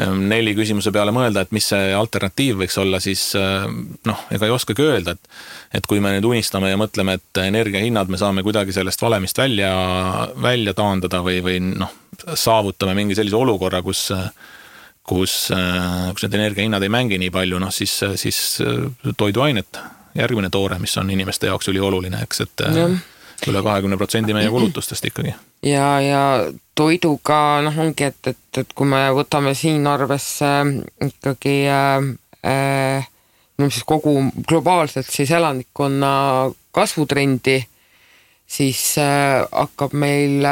Speaker 3: 4 küsimuse peale mõelda, et mis see alternatiiv võiks olla, siis ega ei oskagi öelda, et kui me nüüd unistame ja mõtleme, et energiahinnad me saame kuidagi sellest valemist välja taandada või saavutame mingi sellise olukorra, kus need energiahinnad ei mängi nii palju, siis toiduainet, järgmine toore, mis on inimeste jaoks ülioluline, eks, et üle 20% meie kulutustest ikkagi.
Speaker 1: Ja toiduga ongi, et kui me võtame siin arvesse ikkagi siis kogu globaalselt siis elanikkonna kasvutrendi, siis hakkab meil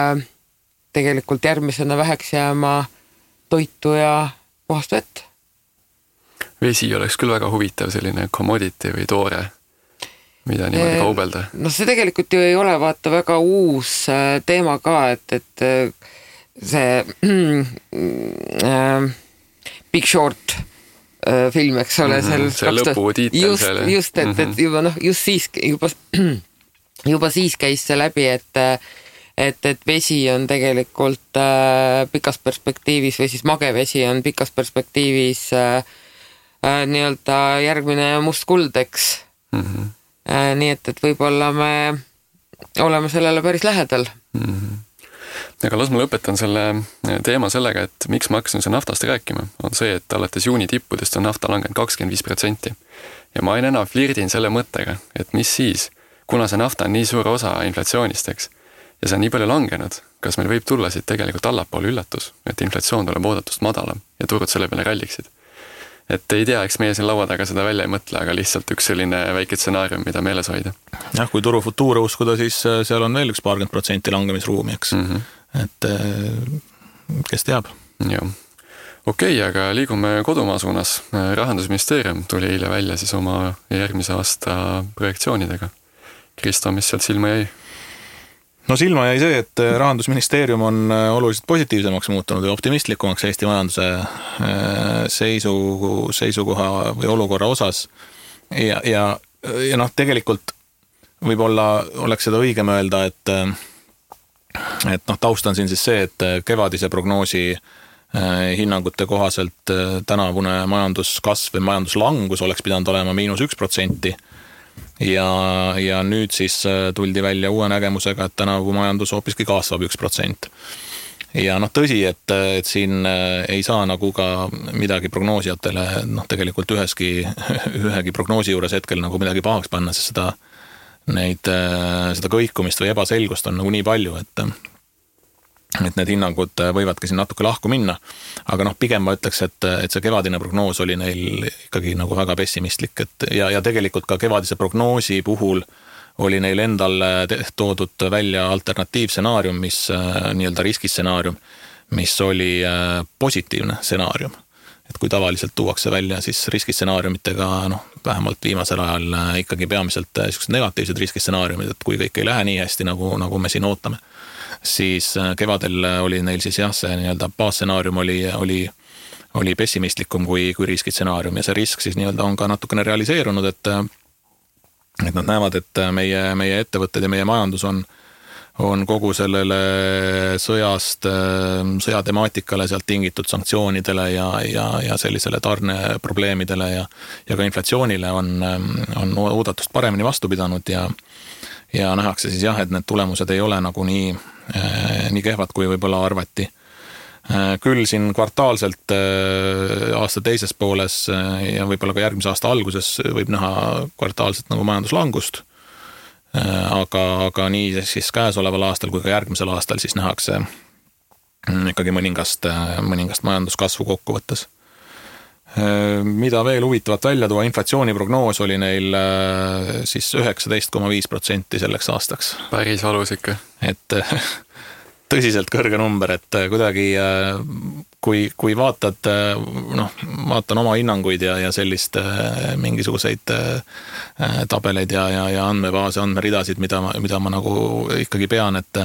Speaker 1: tegelikult järgmisena väheks jääma toitu ja puhast vett.
Speaker 2: Vesi oleks küll väga huvitav selline commodity või toore, mida niimoodi kaubelda.
Speaker 1: See tegelikult ju ei ole vaata väga uus teema ka, et see Big Short film, eks ole,
Speaker 2: see lõputiitel selle.
Speaker 1: Just, et juba siis käis see läbi, et vesi on tegelikult pikas perspektiivis või siis magevesi on pikas perspektiivis nii-öelda järgmine must kuld, eks. Nii et võib-olla me oleme sellele päris lähedal.
Speaker 2: Aga las ma lõpetan selle teema sellega, et miks ma hakkasin naftast rääkima, on see, et alates juuni tippudest on nafta langenud 25%. Ja ma aina enam flirdin selle mõttega, et mis siis, kuna see nafta on nii suur osa inflatsioonist, eks, ja see on nii palju langenud, kas meil võib tulla siit tegelikult allapoole üllatus, et inflatsioon tuleb oodatust madalam ja turud selle peale ralliksid. et ei tea, eks meie siin laua taga seda välja ei mõtle, aga lihtsalt üks selline väike stsenaarium, mida meeles hoida.
Speaker 3: Jah, kui turu futuure uskuda, siis seal on veel 20% langemisruumi, eks. Et kes teab.
Speaker 2: Jah. Okei, aga liigume kodumaa suunas. Rahandusministeerium tuli eile välja siis oma järgmise aasta projektsioonidega. Kristo, mis sealt silma jäi?
Speaker 3: No silma jäi see, et Rahandusministeerium on oluliselt positiivsemaks muutunud ja optimistlikumaks Eesti majanduse seisukoha või olukorra osas. Ja tegelikult võib-olla oleks seda õigem öelda, et taust on siin siis see, et kevadise prognoosi hinnangute kohaselt tänavune majanduskasv või majanduslangus oleks pidanud olema -1%. Ja nüüd siis tuldi välja uue nägemusega, et tänavu majandus hoopiski kasvab 1%. Ja tõsi, et siin ei saa nagu ka midagi prognoosijatele tegelikult ühegi prognoosi juures hetkel nagu midagi pahaks panna, sest seda kõikumist või ebaselgust on nagu nii palju, et need hinnangud võivadki siin natuke lahku minna, aga pigem ma ütleks, et see kevadine prognoos oli neil ikkagi nagu väga pessimistlik, ja tegelikult ka kevadise prognoosi puhul oli neil endal toodud välja alternatiivstsenaarium, mis nii-öelda riskistsenaarium, mis oli positiivne stsenaarium. Et kui tavaliselt tuuakse välja siis riskistsenaariumitega, vähemalt viimasel ajal ikkagi peamiselt negatiivsed riskistsenaariumid, et kui kõik ei lähe nii hästi, nagu me siin ootame, siis kevadel oli neil siis jah, see nii-öelda baasstsenaarium oli pessimistlikum kui riskistsenaarium, ja see risk siis nii-öelda on ka natukene realiseerunud, et nad näevad, et meie ettevõtted ja meie majandus on kogu sellele sõjatemaatikale sealt tingitud sanktsioonidele ja sellisele tarneprobleemidele ja ka inflatsioonile on oodatust paremini vastu pidanud ja nähakse siis jah, et need tulemused ei ole nagu nii kehvad, kui võib-olla arvati. Küll siin kvartaalselt aasta teises pooles ja võib-olla ka järgmise aasta alguses võib näha kvartaalselt nagu majanduslangust, aga nii siis käesoleval aastal kui ka järgmisel aastal siis nähakse ikkagi mõningast majanduskasvu kokkuvõttes. Mida veel huvitavat välja tuua, inflatsiooniprognoos oli neil siis 19,5% selleks aastaks.
Speaker 2: Päris valus ikka. Et
Speaker 3: tõsiselt kõrge number, et kuidagi kui vaatan oma hinnanguid ja sellist mingisuguseid tabeleid ja andmebaase, andmeridasid, mida ma nagu ikkagi pean, et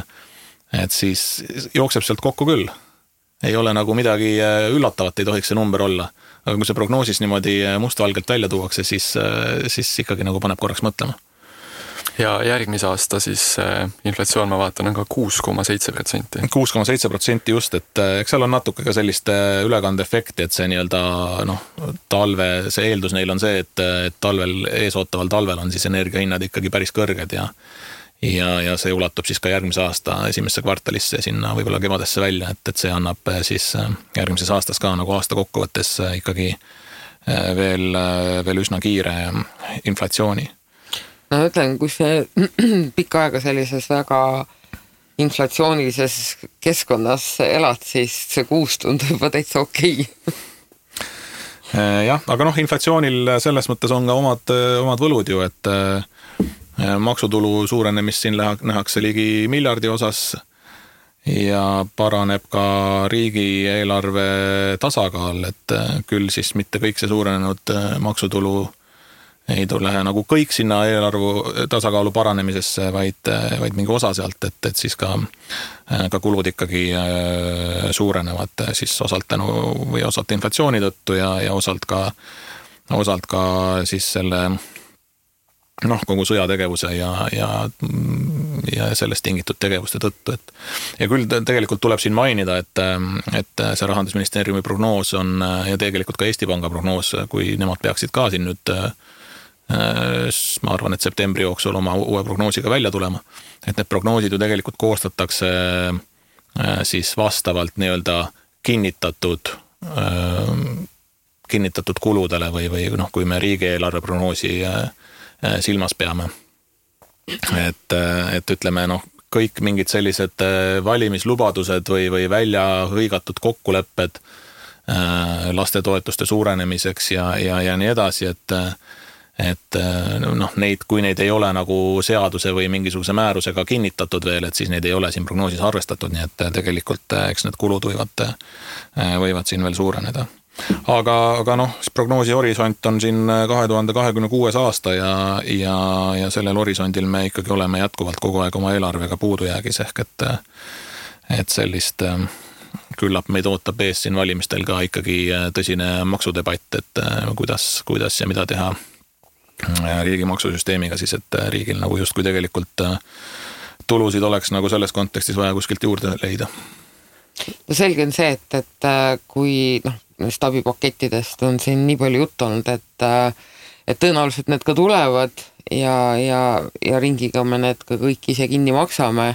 Speaker 3: siis jookseb sealt kokku küll. Ei ole nagu midagi üllatavat, ei tohiks see number olla. Aga kui see prognoosis niimoodi mustvalgelt välja tuuakse, siis ikkagi nagu paneb korraks mõtlema.
Speaker 2: Ja järgmise aasta siis inflatsioon, ma vaatan, on ka 6,7%.
Speaker 3: 6,7% just, et eks seal on natuke ka sellist ülekandeefekti, et see nii-öelda talve, see eeldus neil on see, et talvel, eesootaval talvel on siis energiahinnad ikkagi päris kõrged ja see ulatub siis ka järgmise aasta esimesse kvartalisse sinna võib-olla kevadesse välja, et see annab siis järgmises aastas ka nagu aasta kokkuvõttes ikkagi veel üsna kiire inflatsiooni.
Speaker 1: No ütlen, kui see pikka aega sellises väga inflatsioonilises keskkonnas elad, siis see 6 tundub juba täitsa okei.
Speaker 3: Jah, aga inflatsioonil selles mõttes on ka omad võlud ju, et maksutulu suurenemist siin nähakse ligi miljardi osas ja paraneb ka riigieelarve tasakaal, et küll siis mitte kõik see suurenenud maksutulu ei tule nagu kõik sinna eelarvu tasakaalu paranemisesse, vaid mingi osa sealt, et siis ka kulud ikkagi suurenevad siis osalt tänu või osalt inflatsiooni tõttu ja osalt ka siis selle kogu sõjategevuse ja sellest tingitud tegevuste tõttu. Ja küll tegelikult tuleb siin mainida, et see Rahandusministeeriumi prognoos on ja tegelikult ka Eesti Panga prognoos, kui nemad peaksid ka siin nüüd ma arvan, et septembri jooksul oma uue prognoosiga välja tulema, et need prognoosid ju tegelikult koostatakse siis vastavalt nii-öelda kinnitatud kuludele või kui me riigieelarve prognoosi silmas peame. Et ütleme, kõik mingid sellised valimislubadused või välja hõigatud kokkulepped lastetoetuste suurenemiseks ja nii edasi, et noh, kui neid ei ole nagu seaduse või mingisuguse määrusega kinnitatud veel, et siis neid ei ole siin prognoosis arvestatud, nii et tegelikult eks need kulud võivad siin veel suureneda. Aga noh, prognoosi horisont on siin 2026 aasta ja sellel horisondil me ikkagi oleme jätkuvalt kogu aeg oma eelarvega puudujäägis ehk et sellist küllap meid ootab ees siin valimistel ka ikkagi tõsine maksudebatt, et kuidas ja mida teha riigi maksusüsteemiga siis, et riigil nagu justkui tegelikult tulusid oleks nagu selles kontekstis vaja kuskilt juurde leida.
Speaker 1: No selge on see, et kui abipakettidest on siin nii palju juttu olnud, et tõenäoliselt need ka tulevad ja ringiga me need ka kõik ise kinni maksame.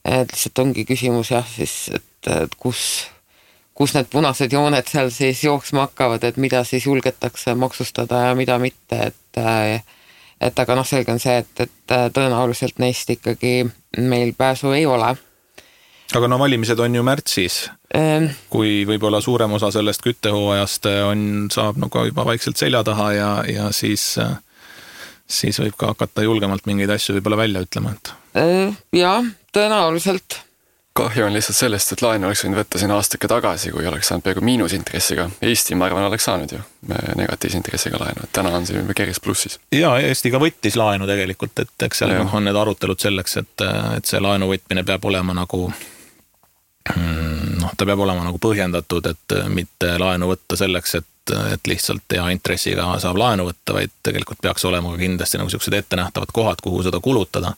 Speaker 1: Et lihtsalt ongi küsimus siis, et kus need punased jooned seal siis jooksma hakkavad, et mida siis julgetakse maksustada ja mida mitte, et aga selge on see, et tõenäoliselt neist ikkagi meil pääsu ei ole.
Speaker 3: Aga valimised on ju märtsis, kui võib-olla suurem osa sellest küttehooajast saab ka juba vaikselt selja taha ja siis võib ka hakata julgemalt mingeid asju võib-olla välja ütlema.
Speaker 1: Jaa, tõenäoliselt.
Speaker 2: Kahju on lihtsalt sellest, et laenu oleks võinud võtta siin aastake tagasi, kui oleks saanud peaaegu miinusintressiga. Eesti, ma arvan, oleks saanud ju negatiivse intressiga laenu, et täna on see juba keris plussis.
Speaker 3: Jaa, Eesti ka võttis laenu tegelikult, et eks seal on need arutelud selleks, et see laenu võtmine peab olema nagu ta peab olema nagu põhjendatud, et mitte laenu võtta selleks, et lihtsalt hea intressiga saab laenu võtta, vaid tegelikult peaks olema kindlasti nagu sellised ettenähtavad kohad, kuhu seda kulutada.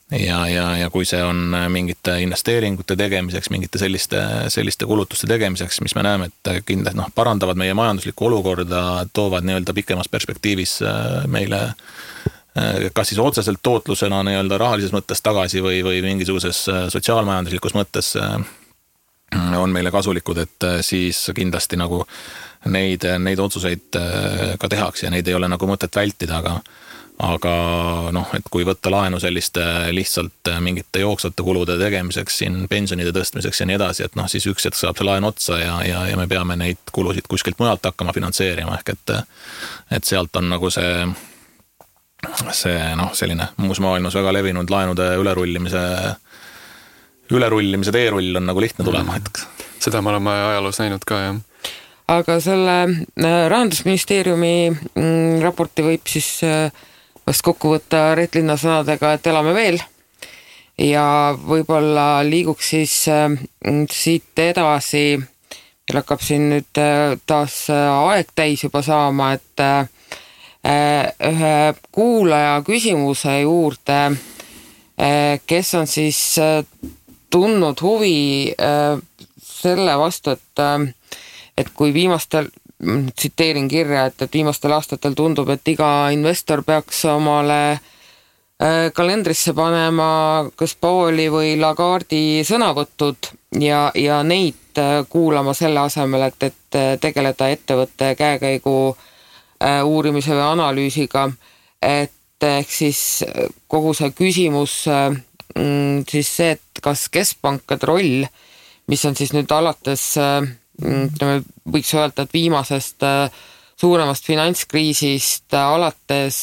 Speaker 3: Ja kui see on mingite investeeringute tegemiseks, mingite selliste kulutuste tegemiseks, mis me näeme, et kindlasti parandavad meie majanduslikku olukorda, toovad nii-öelda pikemas perspektiivis meile kas siis otseselt tootlusena nii-öelda rahalises mõttes tagasi või mingisuguses sotsiaalmajanduslikus mõttes on meile kasulikud, et siis kindlasti nagu neid otsuseid ka tehakse ja neid ei ole nagu mõtet vältida, aga et kui võtta laenu selliste lihtsalt mingite jooksvate kulude tegemiseks, siin pensionide tõstmiseks ja nii edasi, et siis üks hetk saab see laen otsa ja me peame neid kulusid kuskilt mujalt hakkama finantseerima, ehk et sealt on nagu see selline muus maailmas väga levinud laenude ülerullimise teerull on nagu lihtne tulema hetkeks.
Speaker 2: Seda me oleme ajaloos näinud ka, jah.
Speaker 1: Aga selle Rahandusministeeriumi raporti võib siis vast kokku võtta Reet Linna sõnadega, et elame veel ja võib-olla liiguks siis siit edasi, meil hakkab siin nüüd taas aeg täis juba saama, et ühe kuulaja küsimuse juurde, kes on siis tundnud huvi selle vastu, et kui viimastel, tsiteerin kirja, et viimastel aastatel tundub, et iga investor peaks omale kalendrisse panema kas Pauli või Lagardi sõnavõtud ja neid kuulama selle asemel, et tegeleda ettevõtte käekäigu uurimise või analüüsiga, et ehk siis kogu see küsimus siis see, et kas keskpankade roll, mis on siis nüüd alates, võiks öelda, et viimasest suuremast finantskriisist alates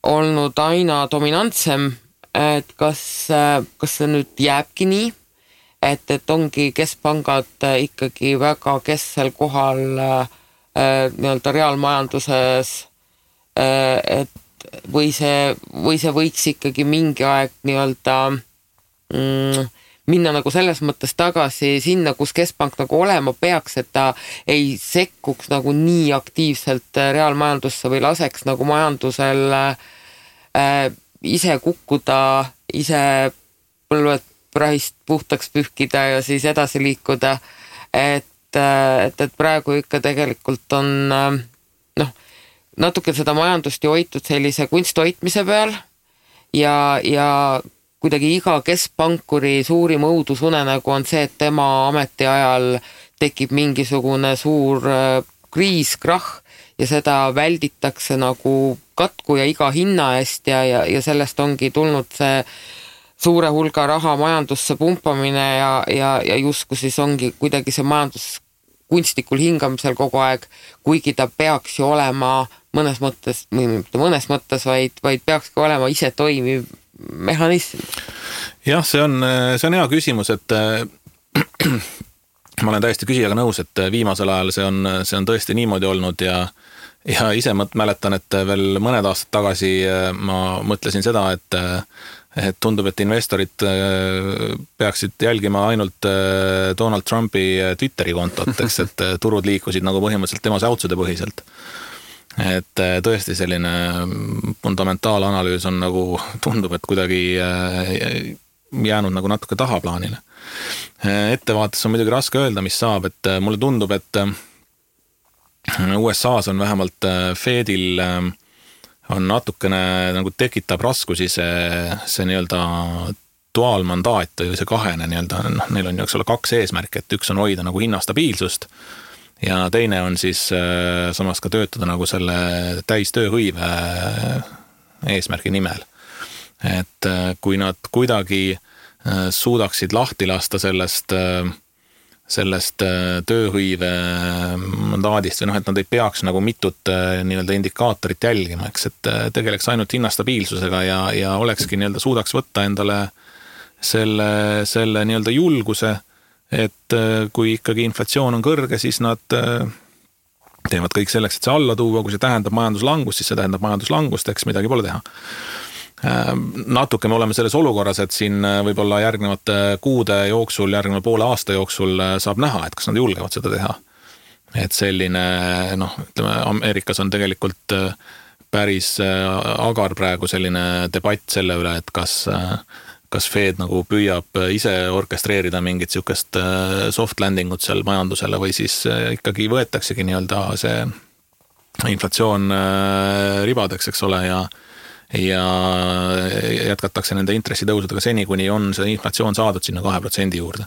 Speaker 1: olnud aina dominantsem, et kas see nüüd jääbki nii, et ongi keskpangad ikkagi väga kesksel kohal nii-öelda reaalmajanduses, et või see võiks ikkagi mingi aeg nii-öelda minna nagu selles mõttes tagasi sinna, kus keskpank nagu olema peaks, et ta ei sekkuks nagu nii aktiivselt reaalmajandusse või laseks nagu majandusel ise kukkuda, ise põlved prahist puhtaks pühkida ja siis edasi liikuda, et praegu ikka tegelikult on natuke seda majandust ju hoitud sellise kunsthoitmise peal ja kuidagi iga keskpankuri suurim õudusunenägu on see, et tema ametiajal tekib mingisugune suur kriis, krahh ja seda välditakse nagu katku ja iga hinna eest ja sellest ongi tulnud see suure hulga raha majandusse pumpamine ja justkui siis ongi kuidagi see majandus kunstlikul hingamisel kogu aeg, kuigi ta peaks ju olema mõnes mõttes, või mitte mõnes mõttes, vaid peakski olema ise toimiv mehhanism.
Speaker 3: Jah, see on hea küsimus, et ma olen täiesti küsijaga nõus, et viimasel ajal see on tõesti niimoodi olnud ja ise mäletan, et veel mõned aastad tagasi ma mõtlesin seda, et tundub, et investorid peaksid jälgima ainult Donald Trumpi Twitteri kontot, eks, et turud liikusid nagu põhimõtteliselt tema säutsude põhiselt. Et tõesti selline fundamentaalanalüüs on nagu, tundub, et kuidagi jäänud nagu natuke tahaplaanile. Ettevaates on muidugi raske öelda, mis saab, et mulle tundub, et USA-s on vähemalt Fedil on natukene nagu tekitab raskusi see nii-öelda duaalmandaat või see kahene nii-öelda, neil on ju eks ole 2 eesmärki, et üks on hoida nagu hinnastabiilsust ja teine on siis samas ka töötada nagu selle täistööhõive eesmärgi nimel. Et kui nad kuidagi suudaksid lahti lasta sellest tööhõive mandaadist või et nad ei peaks nagu mitut nii-öelda indikaatorit jälgima, eks, et tegeleks ainult hinnastabiilsusega ja olekski nii-öelda suudaks võtta endale selle nii-öelda julguse, et kui ikkagi inflatsioon on kõrge, siis nad teevad kõik selleks, et see alla tuua, kui see tähendab majanduslangust, siis see tähendab majanduslangust, eks midagi pole teha. Natuke me oleme selles olukorras, et siin võib-olla järgnevate kuude jooksul, järgneva poole aasta jooksul saab näha, et kas nad julgevad seda teha. Et selline, ütleme, Ameerikas on tegelikult päris agar praegu selline debatt selle üle, et kas Fed nagu püüab ise orkestreerida mingit sihukest soft landingut seal majandusele või siis ikkagi võetaksegi nii-öelda see inflatsioon ribadeks, eks ole, ja jätkatakse nende intressitõusudega seni, kuni on see inflatsioon saadud sinna 2% juurde.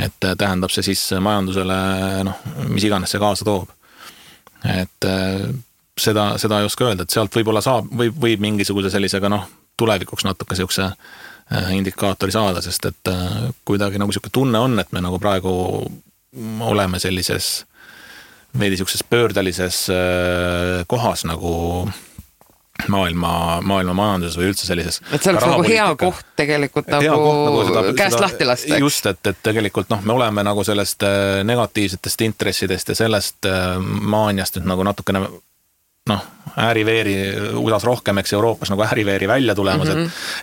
Speaker 3: Et tähendab see siis majandusele, mis iganes see kaasa toob. Et seda ei oska öelda, et sealt võib-olla võib mingisuguse sellisega tulevikuks natuke sihukese indikaatori saada, sest et kuidagi nagu sihuke tunne on, et me nagu praegu oleme sellises veidi sihukeses pöördelises kohas nagu maailma majanduses või üldse sellises.
Speaker 1: Et see oleks nagu hea koht tegelikult nagu käest lahti lasta.
Speaker 3: Just, et tegelikult me oleme nagu sellest negatiivsetest intressidest ja sellest maaniast nüüd nagu natukene ääriveeri USA-s rohkem, eks Euroopas nagu ääriveeri välja tulemas,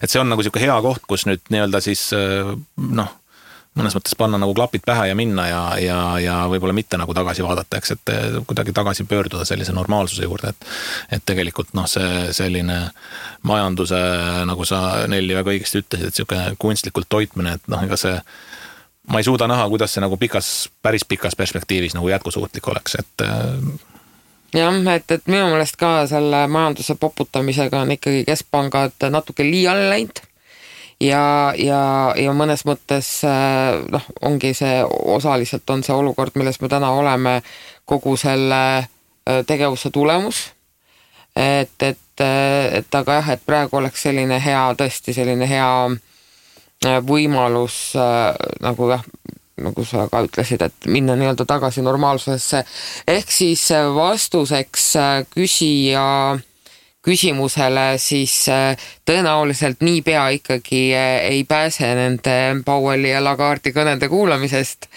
Speaker 3: et see on nagu siuke hea koht, kus nüüd nii-öelda siis mõnes mõttes panna nagu klapid pähe ja minna ja võib-olla mitte nagu tagasi vaadata, eks, et kuidagi tagasi pöörduda sellise normaalsuse juurde, et tegelikult see selline majanduse, nagu sa Nelli väga õigesti ütlesid, et siuke kunstlikult toitmine, et ega see ma ei suuda näha, kuidas see nagu päris pikas perspektiivis nagu jätkusuutlik oleks, et
Speaker 1: jah, et minu meelest ka selle majanduse poputamisega on ikkagi keskpangad natuke liiale läinud ja mõnes mõttes ongi see, osaliselt on see olukord, milles me täna oleme, kogu selle tegevuse tulemus, et aga jah, et praegu oleks selline hea, tõesti selline hea võimalus nagu sa ka ütlesid, et minna nii-öelda tagasi normaalsusesse. Ehk siis vastuseks küsija küsimusele siis tõenäoliselt niipea ikkagi ei pääse nende Powelli ja Lagarde'i kõnede kuulamisest,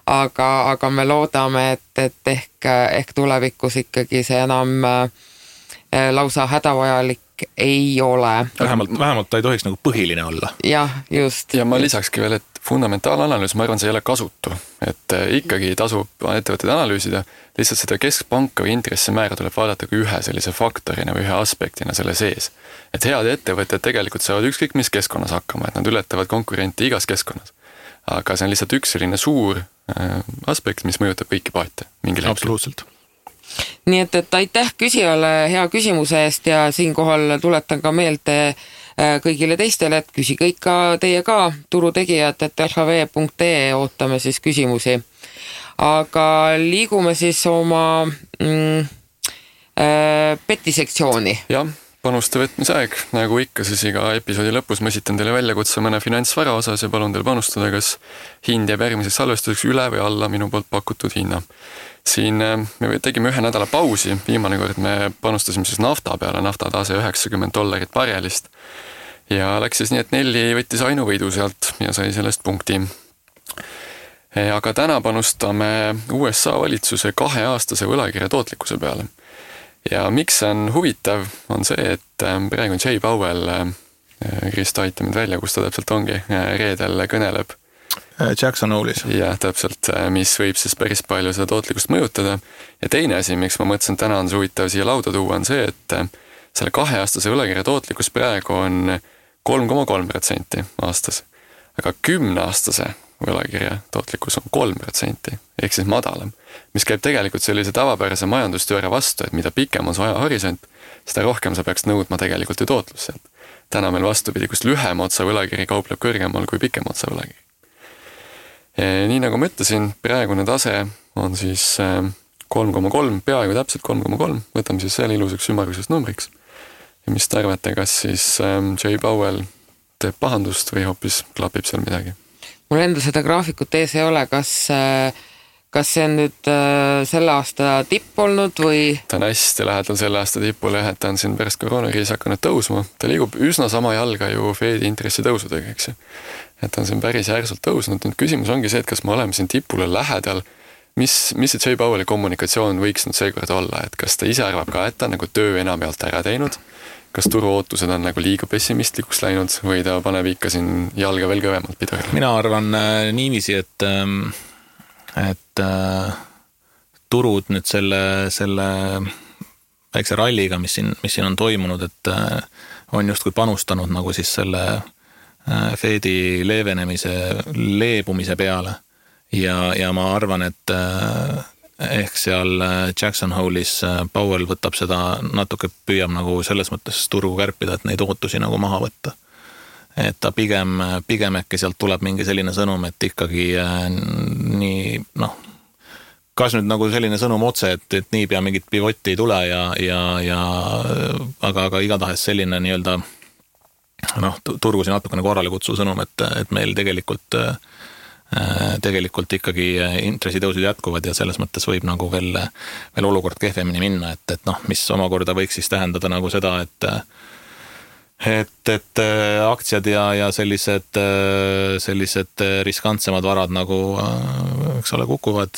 Speaker 1: aga me loodame, et ehk tulevikus ikkagi see enam lausa hädavajalik ei ole.
Speaker 3: Vähemalt ta ei tohiks nagu põhiline olla.
Speaker 1: Jah, just.
Speaker 2: Ja ma lisakski veel, et fundamentaalanalüüs, ma arvan, see ei ole kasutu, et ikkagi tasub ettevõtteid analüüsida, lihtsalt seda keskpanka või intressimäära tuleb vaadata kui ühe sellise faktorina või ühe aspektina selle sees. Et head ettevõtted tegelikult saavad ükskõik mis keskkonnas hakkama, et nad ületavad konkurenti igas keskkonnas. Aga see on lihtsalt üks selline suur aspekt, mis mõjutab kõiki paate mingil hetkel.
Speaker 3: Absoluutselt.
Speaker 1: Nii et aitäh küsijale hea küsimuse eest ja siinkohal tuletan ka meelde kõigile teistele, et küsi kõik ka teie ka, turutegijad, et lhv.ee ootame siis küsimusi. Aga liigume siis oma petisektsiooni.
Speaker 2: Jah, panuste võtmise aeg, nagu ikka, siis iga episoodi lõpus ma esitan teile väljakutse mõne finantsvara osas ja palun teil panustada, kas hind jääb järgmiseks salvestuseks üle või alla minu poolt pakutud hinna. Siin me tegime 1 nädala pausi, viimane kord me panustasime siis nafta peale, naftatase $90 barelist ja läks siis nii, et Nelli võttis ainuvõidu sealt ja sai sellest punkti. Aga täna panustame USA valitsuse 2-aastase võlakirja tootlikkuse peale. Ja miks see on huvitav, on see, et praegu Jay Powell, Krista aitab mind välja, kus ta täpselt ongi, reedel kõneleb.
Speaker 3: Jackson Hole'is.
Speaker 2: Jah, täpselt, mis võib siis päris palju seda tootlikkust mõjutada. Ja teine asi, miks ma mõtlesin, täna on see huvitav siia lauda tuua, on see, et selle 2-aastase võlakirja tootlikkus praegu on 3,3% aastas. Aga 10-aastase võlakirja tootlikkus on 3%, ehk siis madalam, mis käib tegelikult sellise tavapärase majandusteooria vastu, et mida pikem on su ajahorisont, seda rohkem sa peaks nõudma tegelikult ju tootlust sealt. Täna meil vastupidi, kus lühem otsa võlakiri kaupleb kõrgemal kui pikem otsa võlakiri. Nii nagu ma ütlesin, praegune tase on siis 3,3, peaaegu täpselt 3,3, võtame siis selle ilusaks ümmargusest numbriks. Ja mis te arvate, kas siis Jay Powell teeb pahandust või hoopis klapib seal midagi?
Speaker 1: Mul enda seda graafikut ees ei ole, kas see on nüüd selle aasta tipp olnud või?
Speaker 2: Ta on hästi lähedal selle aasta tipule, et ta on siin pärast koroonakriisi hakanud tõusma. Ta liigub üsna sama jalga ju Fedi intressi tõusudega, eks ju. Et ta on siin päris järsult tõusnud. Nüüd küsimus ongi see, et kas me oleme siin tipule lähedal. Mis see Jay Powelli kommunikatsioon võiks nüüd seekord olla? Et kas ta ise arvab ka, et ta on nagu töö enam pealt ära teinud? Kas turuootused on nagu liiga pessimistlikuks läinud või ta paneb ikka siin jalga veel kõvemalt pidurile?
Speaker 3: Mina arvan niiviisi, et turud nüüd selle väikse ralliga, mis siin on toimunud, et on justkui panustanud nagu siis selle Fedi leebumise peale ja ma arvan, et ehk seal Jackson Hole'is Powell võtab seda natuke, püüab nagu selles mõttes turgu kärpida, et neid ootusi nagu maha võtta. Et ta pigem äkki sealt tuleb mingi selline sõnum, et ikkagi nii, kas nüüd nagu selline sõnum otse, et niipea mingit pivotti ei tule aga igatahes selline nii-öelda turgusi natukene korrale kutsu sõnum, et meil tegelikult ikkagi intressitõusud jätkuvad ja selles mõttes võib nagu veel olukord kehvemini minna, et mis omakorda võiks siis tähendada nagu seda, et aktsiad ja sellised riskantsemad varad nagu, eks ole, kukuvad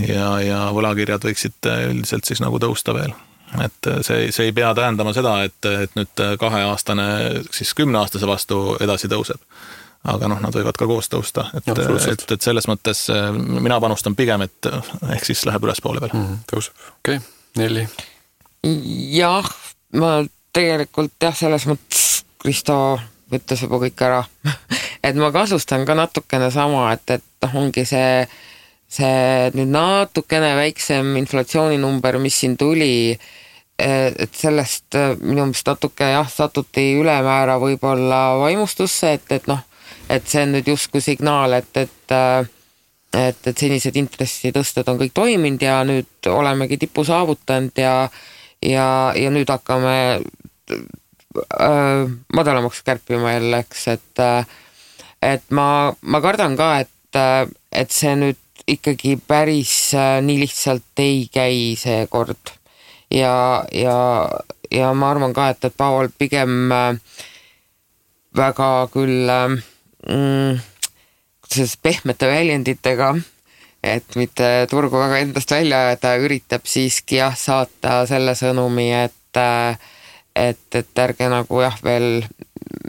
Speaker 3: ja võlakirjad võiksid üldiselt siis nagu tõusta veel. Et see ei pea tähendama seda, et nüüd 2-aastane siis 10-aastase vastu edasi tõuseb. Aga nad võivad ka koos tõusta, et selles mõttes mina panustan pigem, et ehk siis läheb üles poole peale.
Speaker 2: Tõuseb, okei. Nelli?
Speaker 1: Jah, ma tegelikult selles mõttes Kristo võttis juba kõik ära. Et ma kasustan ka natukene sama, et ongi see nüüd natukene väiksem inflatsiooninumber, mis siin tuli, et sellest minu meelest natuke satuti ülemäära võib-olla vaimustusse, et see on nüüd justkui signaal, et senised intressitõsted on kõik toiminud ja nüüd olemegi tipu saavutanud ja nüüd hakkame madalamaks kärpima jälle, eks, et ma kardan ka, et see nüüd ikkagi päris nii lihtsalt ei käi see kord ja ma arvan ka, et Powell pigem väga küll pehmete väljenditega, et mitte turgu väga endast välja ajada, üritab siiski saata selle sõnumi, et ärge nagu veel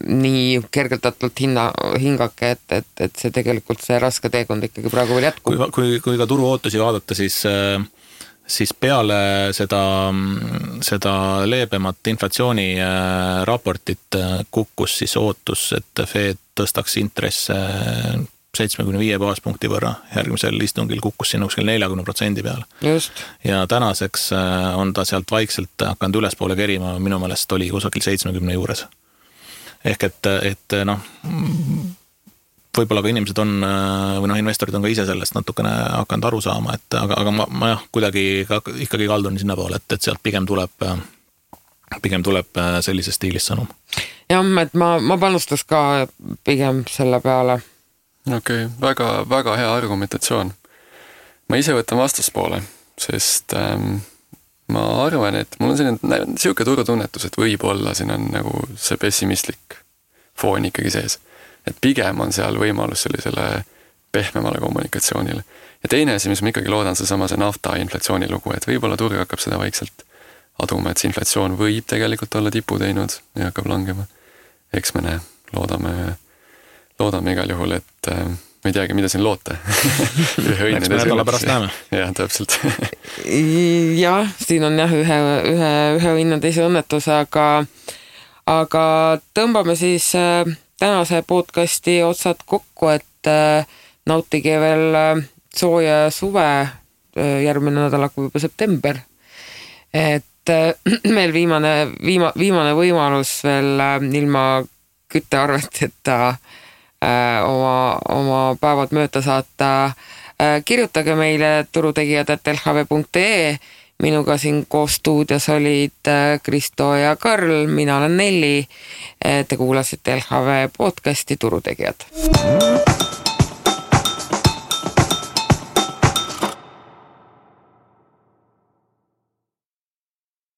Speaker 1: nii kergeldatult hingake, et see tegelikult see raske teekond ikkagi praegu veel jätkub.
Speaker 3: Kui ka turu ootusi vaadata, siis peale seda leebemat inflatsiooni raportit kukkus siis ootus, et Fed tõstaks intresse 75 baaspunkti võrra. Järgmisel istungil kukkus sinna kuskil 40% peale.
Speaker 1: Just. Ja
Speaker 3: tänaseks on ta sealt vaikselt hakanud ülespoole kerima, minu meelest oli kusagil 70 juures. Ehk et võib-olla ka inimesed on, või investorid on ka ise sellest natukene hakanud aru saama, aga ma kuidagi ikkagi kaldun sinna poole, et sealt pigem tuleb pigem tuleb sellises stiilis sõnum.
Speaker 1: Jah, et ma panustas ka pigem selle peale.
Speaker 2: Okei, väga hea argumentatsioon. Ma ise võtan vastaspoole, sest ma arvan, et mul on selline turutunnetus, et võib-olla siin on nagu see pessimistlik foon ikkagi sees. Et pigem on seal võimalus sellisele pehmemale kommunikatsioonile. Ja teine asi, mis ma ikkagi loodan, see nafta inflatsiooni lugu, et võib-olla turg hakkab seda vaikselt aduma, et see inflatsioon võib tegelikult olla tipu teinud ja hakkab langema. Eks me näe, loodame igal juhul, et ma ei teagi, mida siin loota.
Speaker 3: Eks me nädala pärast näeme.
Speaker 2: Jah, täpselt.
Speaker 1: Jah, siin on ühe õnne teise õnnetus, aga tõmbame siis tänase podcasti otsad kokku, et nautige veel sooja suve, järgmine nädal hakkab juba september. Et meil viimane võimalus veel ilma küttearveteta oma päevad mööda saata. Kirjutage meile turutegijad@lhv.ee. Minuga siin koos stuudios olid Kristo ja Karl, mina olen Nelli. Te kuulasite LHV podcasti Turutegijad.